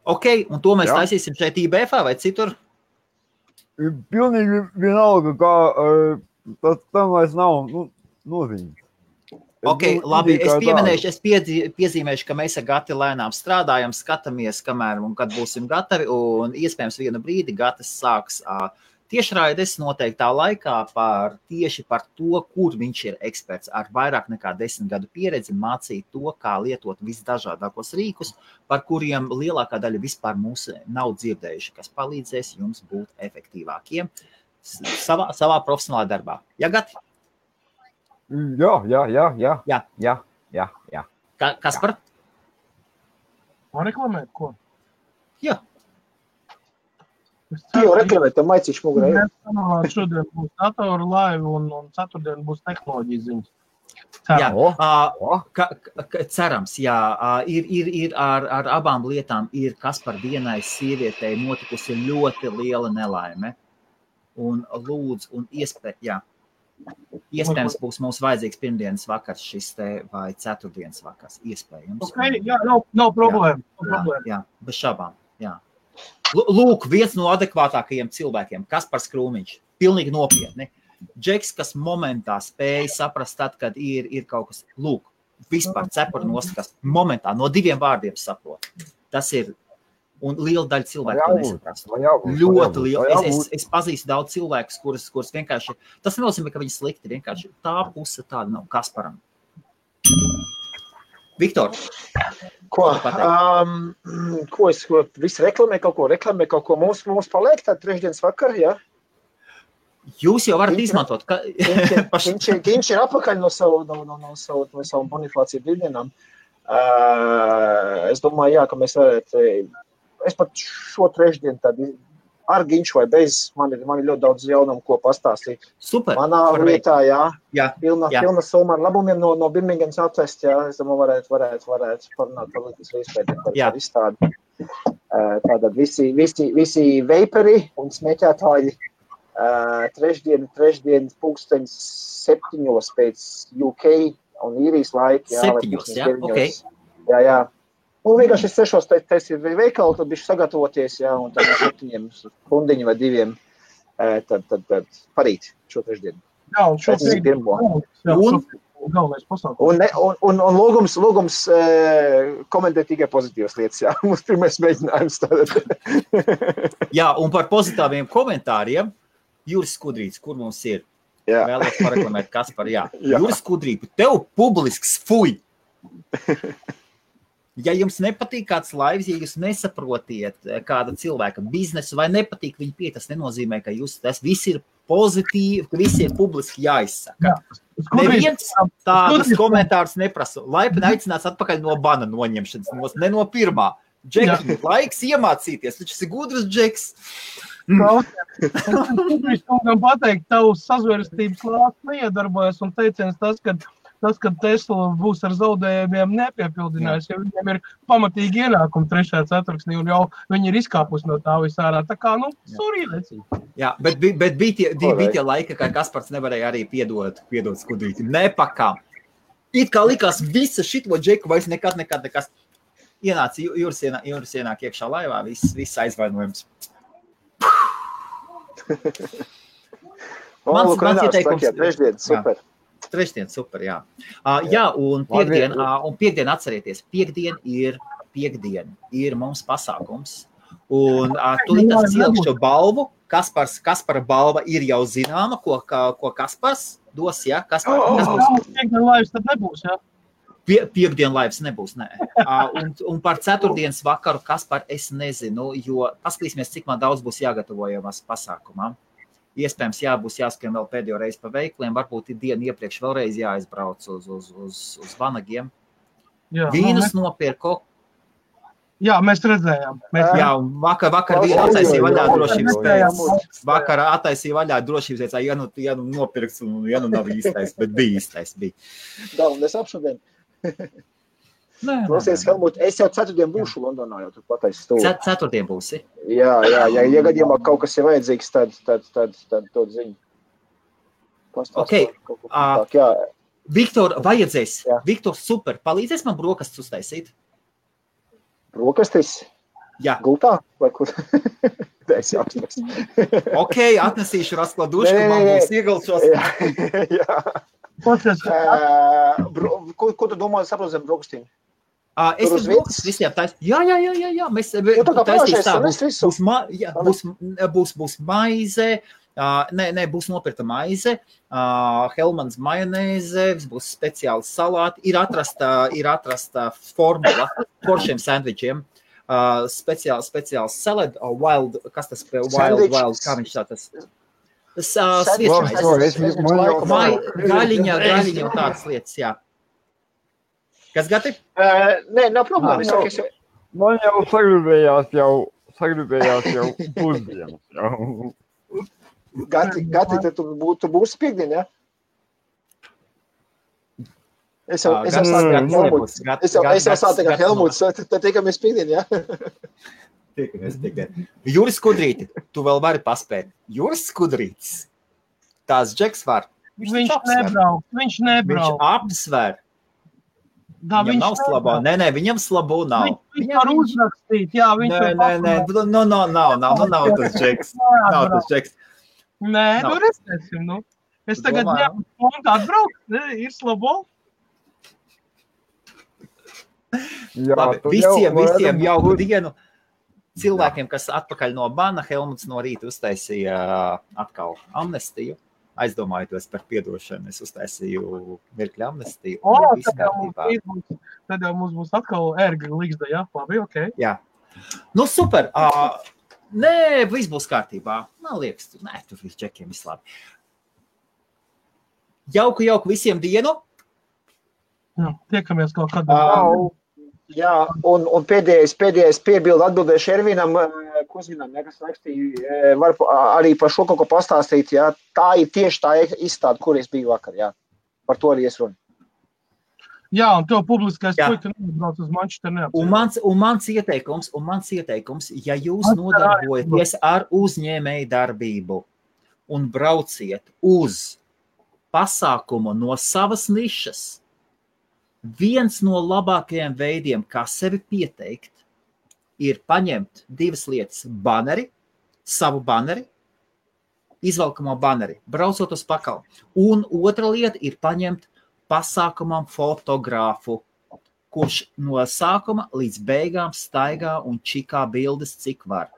Ok, un to mēs taisīsim šeit IBF vai citur? Pilnīgi vienalga, kā tam vairs nav noziņas. Ok, labi, es piezīmēšu, ka mēs ar Gati lēnām strādājam, skatāmies, kamēr un kad būsim gatavi, un iespējams vienu brīdi Gatis sāks tiešraides noteiktā laikā tieši par to, kur viņš ir eksperts ar vairāk nekā 10 gadu pieredzi, mācīt to, kā lietot visdažādākos rīkus, par kuriem lielākā daļa vispār mūs nav dzirdējuši, kas palīdzēs jums būt efektīvākiem savā profesionālā darbā. Ja, Gati? Jā. Kaspar? Man reklamēt, ko? Jā. Jau reklamēt, tev maicīšu mugurē. Šodien būs datoru laiva un ceturtdien būs tehnoloģijas ziņas. Cerams, jā. Ir ar abām lietām ir Kaspar vienai sievietei notikusi ļoti liela nelaime. Un lūdzu, un iespējams būs mums vajadzīgs pirmdienas vakars šis te vai ceturtdienas vakars. Iespējams. Ok, jā, nav problēma. Jā, bez šabām, jā. Lūk, viens no adekvātākajiem cilvēkiem, Kaspars Krūmiņš, pilnīgi nopietni. Džeks, kas momentā spēja saprast tad, kad ir kaut kas, lūk, vispār cepura nost, kas momentā no 2 vārdiem saprot. Tas ir Un liela daļa cilvēku to nesaprast. Ļoti liela. Es pazīstu daudz cilvēkus, kurus vienkārši, tas nenozīmē, ka viņi slikti, vienkārši tā puse tāda nav Kasparam. Viktor, ko es visu reklamē kaut ko mums paliek tā trešdienas vakar, jā? Jūs jau varat izmantot. Viņš ir apakaļ no savu bonifāciju brīvdienām. Es domāju, jā, ka mēs varētu, es pat šo trešdienu tad ar Ginču vai bez, man ir ļoti daudz jaunumu, ko pastāstīt. Super. Manā vietā, pilna summa ar labumiem no Birmingemas atvest, jā, es domāju, varētu parunāt par līdz izpētiem par izstādi. Tātad visi veiperi un smēķētāji trešdien pulksteņas 7 pēc UK un īrijas laika. 7, jā, ok. Jā. Un vienkārši 6 tas ir veikali, tad bišķi sagatavoties, jā, un tad 7 stundiņu vai 2 tad parīt šo trešdienu. Jā, un šo pirmo. Galvenais pasākums. Un lūgums komentēt tikai pozitīvas lietas, jā. Mums pirmais mēģinājums tātad. Jā, un par pozitīviem komentāriem, Juris Skudrīts, kur mums ir? Jā. Vēlos pareklamēt Kaspar, jā. Juris Skudrīts, tev publisks fuj! Ja jums nepatīk kāds laivs, ja jūs nesaprotiet kāda cilvēka biznesu vai nepatīk viņa pie, tas nenozīmē, ka tas viss ir pozitīvi, ka viss ir publiski jāizsaka. Neviens tādas komentārus neprasa. Laipni aicināts atpakaļ no bana noņemšanas, ne no pirmā. Džeki, laiks iemācīties, taču esi gudrs Džeks. Es kungam pateikt, tavs sazvērstības lāsts neiedarbojas un teiciens tas, ka Tesla būs ar zaudējumiem nepiepildinājis, jo viņiem ir pamatīgi ienākumi 3. ceturksnī un jau viņi ir izkāpus no tā visārā. Tā kā, surīlēcīgi. Jā, bet bija tie laika, kā Kaspars nevarēja arī piedot Skudrītim. Nepakām. It kā likās visa šito Džeku vairs nekad. Ienāca Juris ienāk iekšā laivā, viss aizvainojums. Mans ieteikums. Trešdien, super. Trešdien, super, jā. Jā, un piekdien atcerieties, piekdien ir mums pasākums. Un tūlīt es cielkšu balvu. Kaspara balva ir jau zināma, ko Kaspars dos, jā? Piekdien laivs tad nebūs, jā? Piekdien laivs nebūs, nē. Un par ceturtdienas vakaru Kaspar es nezinu, jo paskatīsimies, cik man daudz būs jāgatavojamas pasākumā. Iespējams, būs jāskrien vēl pēdējo reizi pa veikliem, varbūt ir dienu iepriekš vēlreiz jāizbrauc uz vanagiem. Vīnus nopirko. Jā, mēs redzējām. Jā, un vakar vīnu attaisīja vaļā drošības pēc. Vakar attaisīja vaļā drošības pēc, ja nopirks un ja nav īstais, bet bija īstais. Galvenais apšodien. Klausies, Helmut, es jau ceturtdien būšu Londonā, jau tur pataisu stūri. Ceturtdien būsi? Jā, ja gadījumā kaut kas ir vajadzīgs, tad dod ziņu. Ok, Viktor, vajadzēs. Viktor, super, palīdzēs man brokastis uztaisīt? Brokastis? Jā. Gultā? Vai kur? Es jau atnes. Ok, atnesīšu raskladušku, man būs iegalšos. Jā. Ko tu domā, saprot zem brokastīm? Es brokastis visiem taisīšu. Jā. Mēs taisīšu tā. Būs maize. Būs nopirta maize, Helmans majonēze, būs speciāli salāti, ir atrasta formula foršiem sandvičiem, speciāli salad, wild, kas tas wild, kā viņš tā tas? Gaļiņa un tādas lietas, jā. Kas gati? Nē, nav problēma. Man jau sagribējās jau pusdienas jau. Gati, tad tu būsi piekdien, jā? Es jau sāku ar Helmuts, tad tiekamies piekdien, jā? Tiekamies piekdien. Juris Skudrīti, tu vēl vari paspēt. Juris Skudrītis, tās Džeks var. Viņš nebrauc. Viņš apsver. Viņam nav slabo. Nē, viņam slabo nav. Viņš var uzrakstīt, jā. Nav tas Džeks. Nē, redzēsim, Es tagad atbraucu, ir slabo. Labi, visiem jauku dienu. cilvēkiem, kas atpakaļ no bana, Helmuts no rīta uztaisīja atkal amnestiju. Aizdomājoties par piedošanu, es uztaisīju mirkļa amnestiju. Tad jau mums būs atkal ērga līgzda, jā? Labi, ok. Jā. Nu, super. Nē, viss būs kārtībā. Man liekas, tur viss čekiem viss labi. Jauku visiem dienu. Jā, tiekamies kaut kādā. Jā, un pēdējais piebildu atbildēšu Ervinam, Kuzinam, kas rakstīja, var arī par šo kaut ko pastāstīt, jā. Tā ir tieši tā izstāde, kur es biju vakar, jā. Par to arī es runu. Jā, un tev publiskais puika neatbrauc uz Manchester neapceļ. Un mans ieteikums, ja jūs nodarbojaties ar uzņēmēju darbību un brauciet uz pasākumu no savas nišas, viens no labākajiem veidiem, kā sevi pieteikt, ir paņemt 2 lietas – baneri, savu baneri, izvelkamo baneri, braucot uz pakalu. Un otra lieta ir paņemt pasākumam fotogrāfu, kurš no sākuma līdz beigām staigā un čikā bildes, cik var.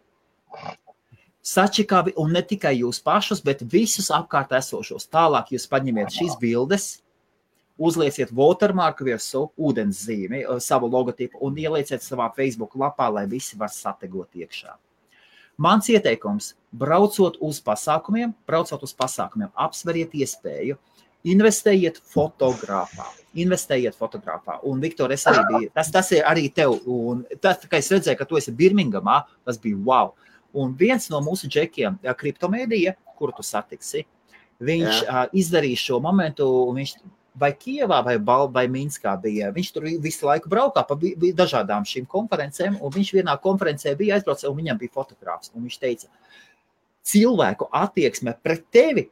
Sačikā, un ne tikai jūs pašus, bet visus apkārt esošos. Tālāk jūs paņemiet šīs bildes, uzlieciet watermarku virsū, ūdens zīmi, savu logotipu un ielieciet savā Facebook lapā, lai visi var sategot iekšā. Mans ieteikums, braucot uz pasākumiem, apsveriet iespēju, investējiet fotogrāfā. Un, Viktor, es arī biju, tas ir arī tev, un tas, kā es redzēju, ka tu esi Birmingamā, tas bija wow. Un viens no mūsu džekiem, kriptomēdija, kuru tu satiksi, viņš izdarīja šo momentu, un viņš vai Kievā, vai Minskā bija. Viņš tur visu laiku braukā pa dažādām šīm konferencēm, un viņš vienā konferencē bija aizbraucis, un viņam bija fotogrāfs. Un viņš teica, cilvēku attieksme pret tevi,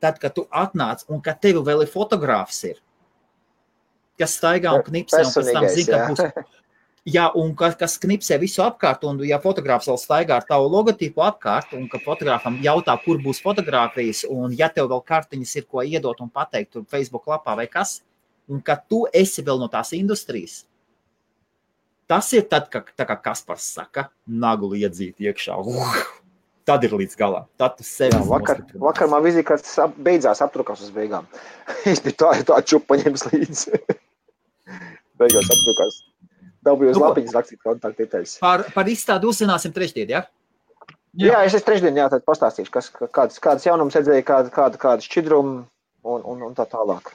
tad, kad tu atnāc, un kad tevi vēl ir fotogrāfs ir, kas staigā un knipsē, un pēc tam zina, ka būs... Jā, un kas knipsē visu apkārt, un ja fotogrāfs vēl staigā ar tavu logotipu apkārt, un ka fotogrāfam jautā, kur būs fotogrāfijas, un ja tev vēl kartiņas ir, ko iedot un pateikt tur Facebook lapā vai kas, un ka tu esi vēl no tās industrijas, tas ir tad, tā kā Kaspars saka, naguli iedzīt iekšā. Tad ir līdz galam. Tad tu sevi vakar man vizīkārts beidzās aptrukās uz beigām. Es biju tā čupa paņēmis līdzi. Beigās aptrukās. Dabūju uz lapiņas rakstīt kontaktdetaļas. Par izstādi uzzināsim trešdien, jā? Jā, es trešdien, jā, tad pastāstīšu, kādas jaunums redzēja, kāda šķidruma un tā tālāk.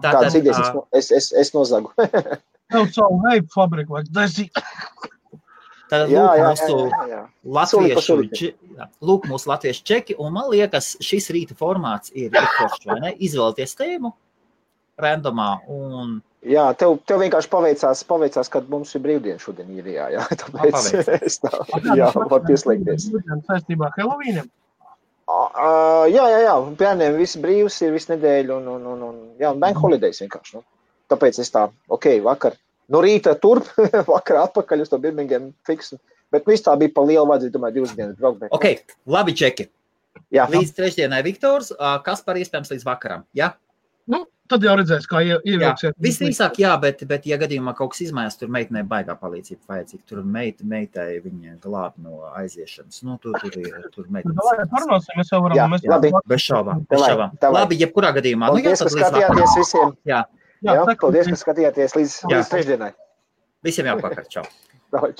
Kādas idejas es nozagu. Tev savu veipu fabriku vajag dažīt. Tad lūk mūsu latviešu čeki, un man liekas, šis rīta formāts ir foršs, vai ne? Izvēlēties tēmu randomā un... Jā, tev vienkārši paveicās, kad mums ir brīvdiena šodien īrijā, jā, tāpēc es tā, var pieslēgties. Saistībā Helovīniem? Jā, bērniem viss brīvs ir visu nedēļu un bank holidays vienkārši, nu. Tāpēc es tā, vakar, no rīta turp, vakar atpakaļ uz to Birmingham fiksu, bet viss tā bija pa lielu vajadzīt, domāju, 2 dienas braukt. Labi čeki. Jā. Līdz trešdienai Viktors, kas par iespējams līdz vakaram, jā? Nu, tad jau redzēs, kā ievilksiet. Visdrīzāk, jā, bet ja gadījumā kaut kas izmaiņas, tur meitinē baigā palīdzība vajadzīga. Tur meitai viņa glāb no aiziešanas. Nu, tur meitinas. Vai parunāsim, mēs jau varam. Bez šaubām. Labi, jebkurā gadījumā. Paldies, ka skatījāties visiem. Jā, paldies, ka skatījāties līdz trešdienai. Visiem jāpakar. Čau. Čau.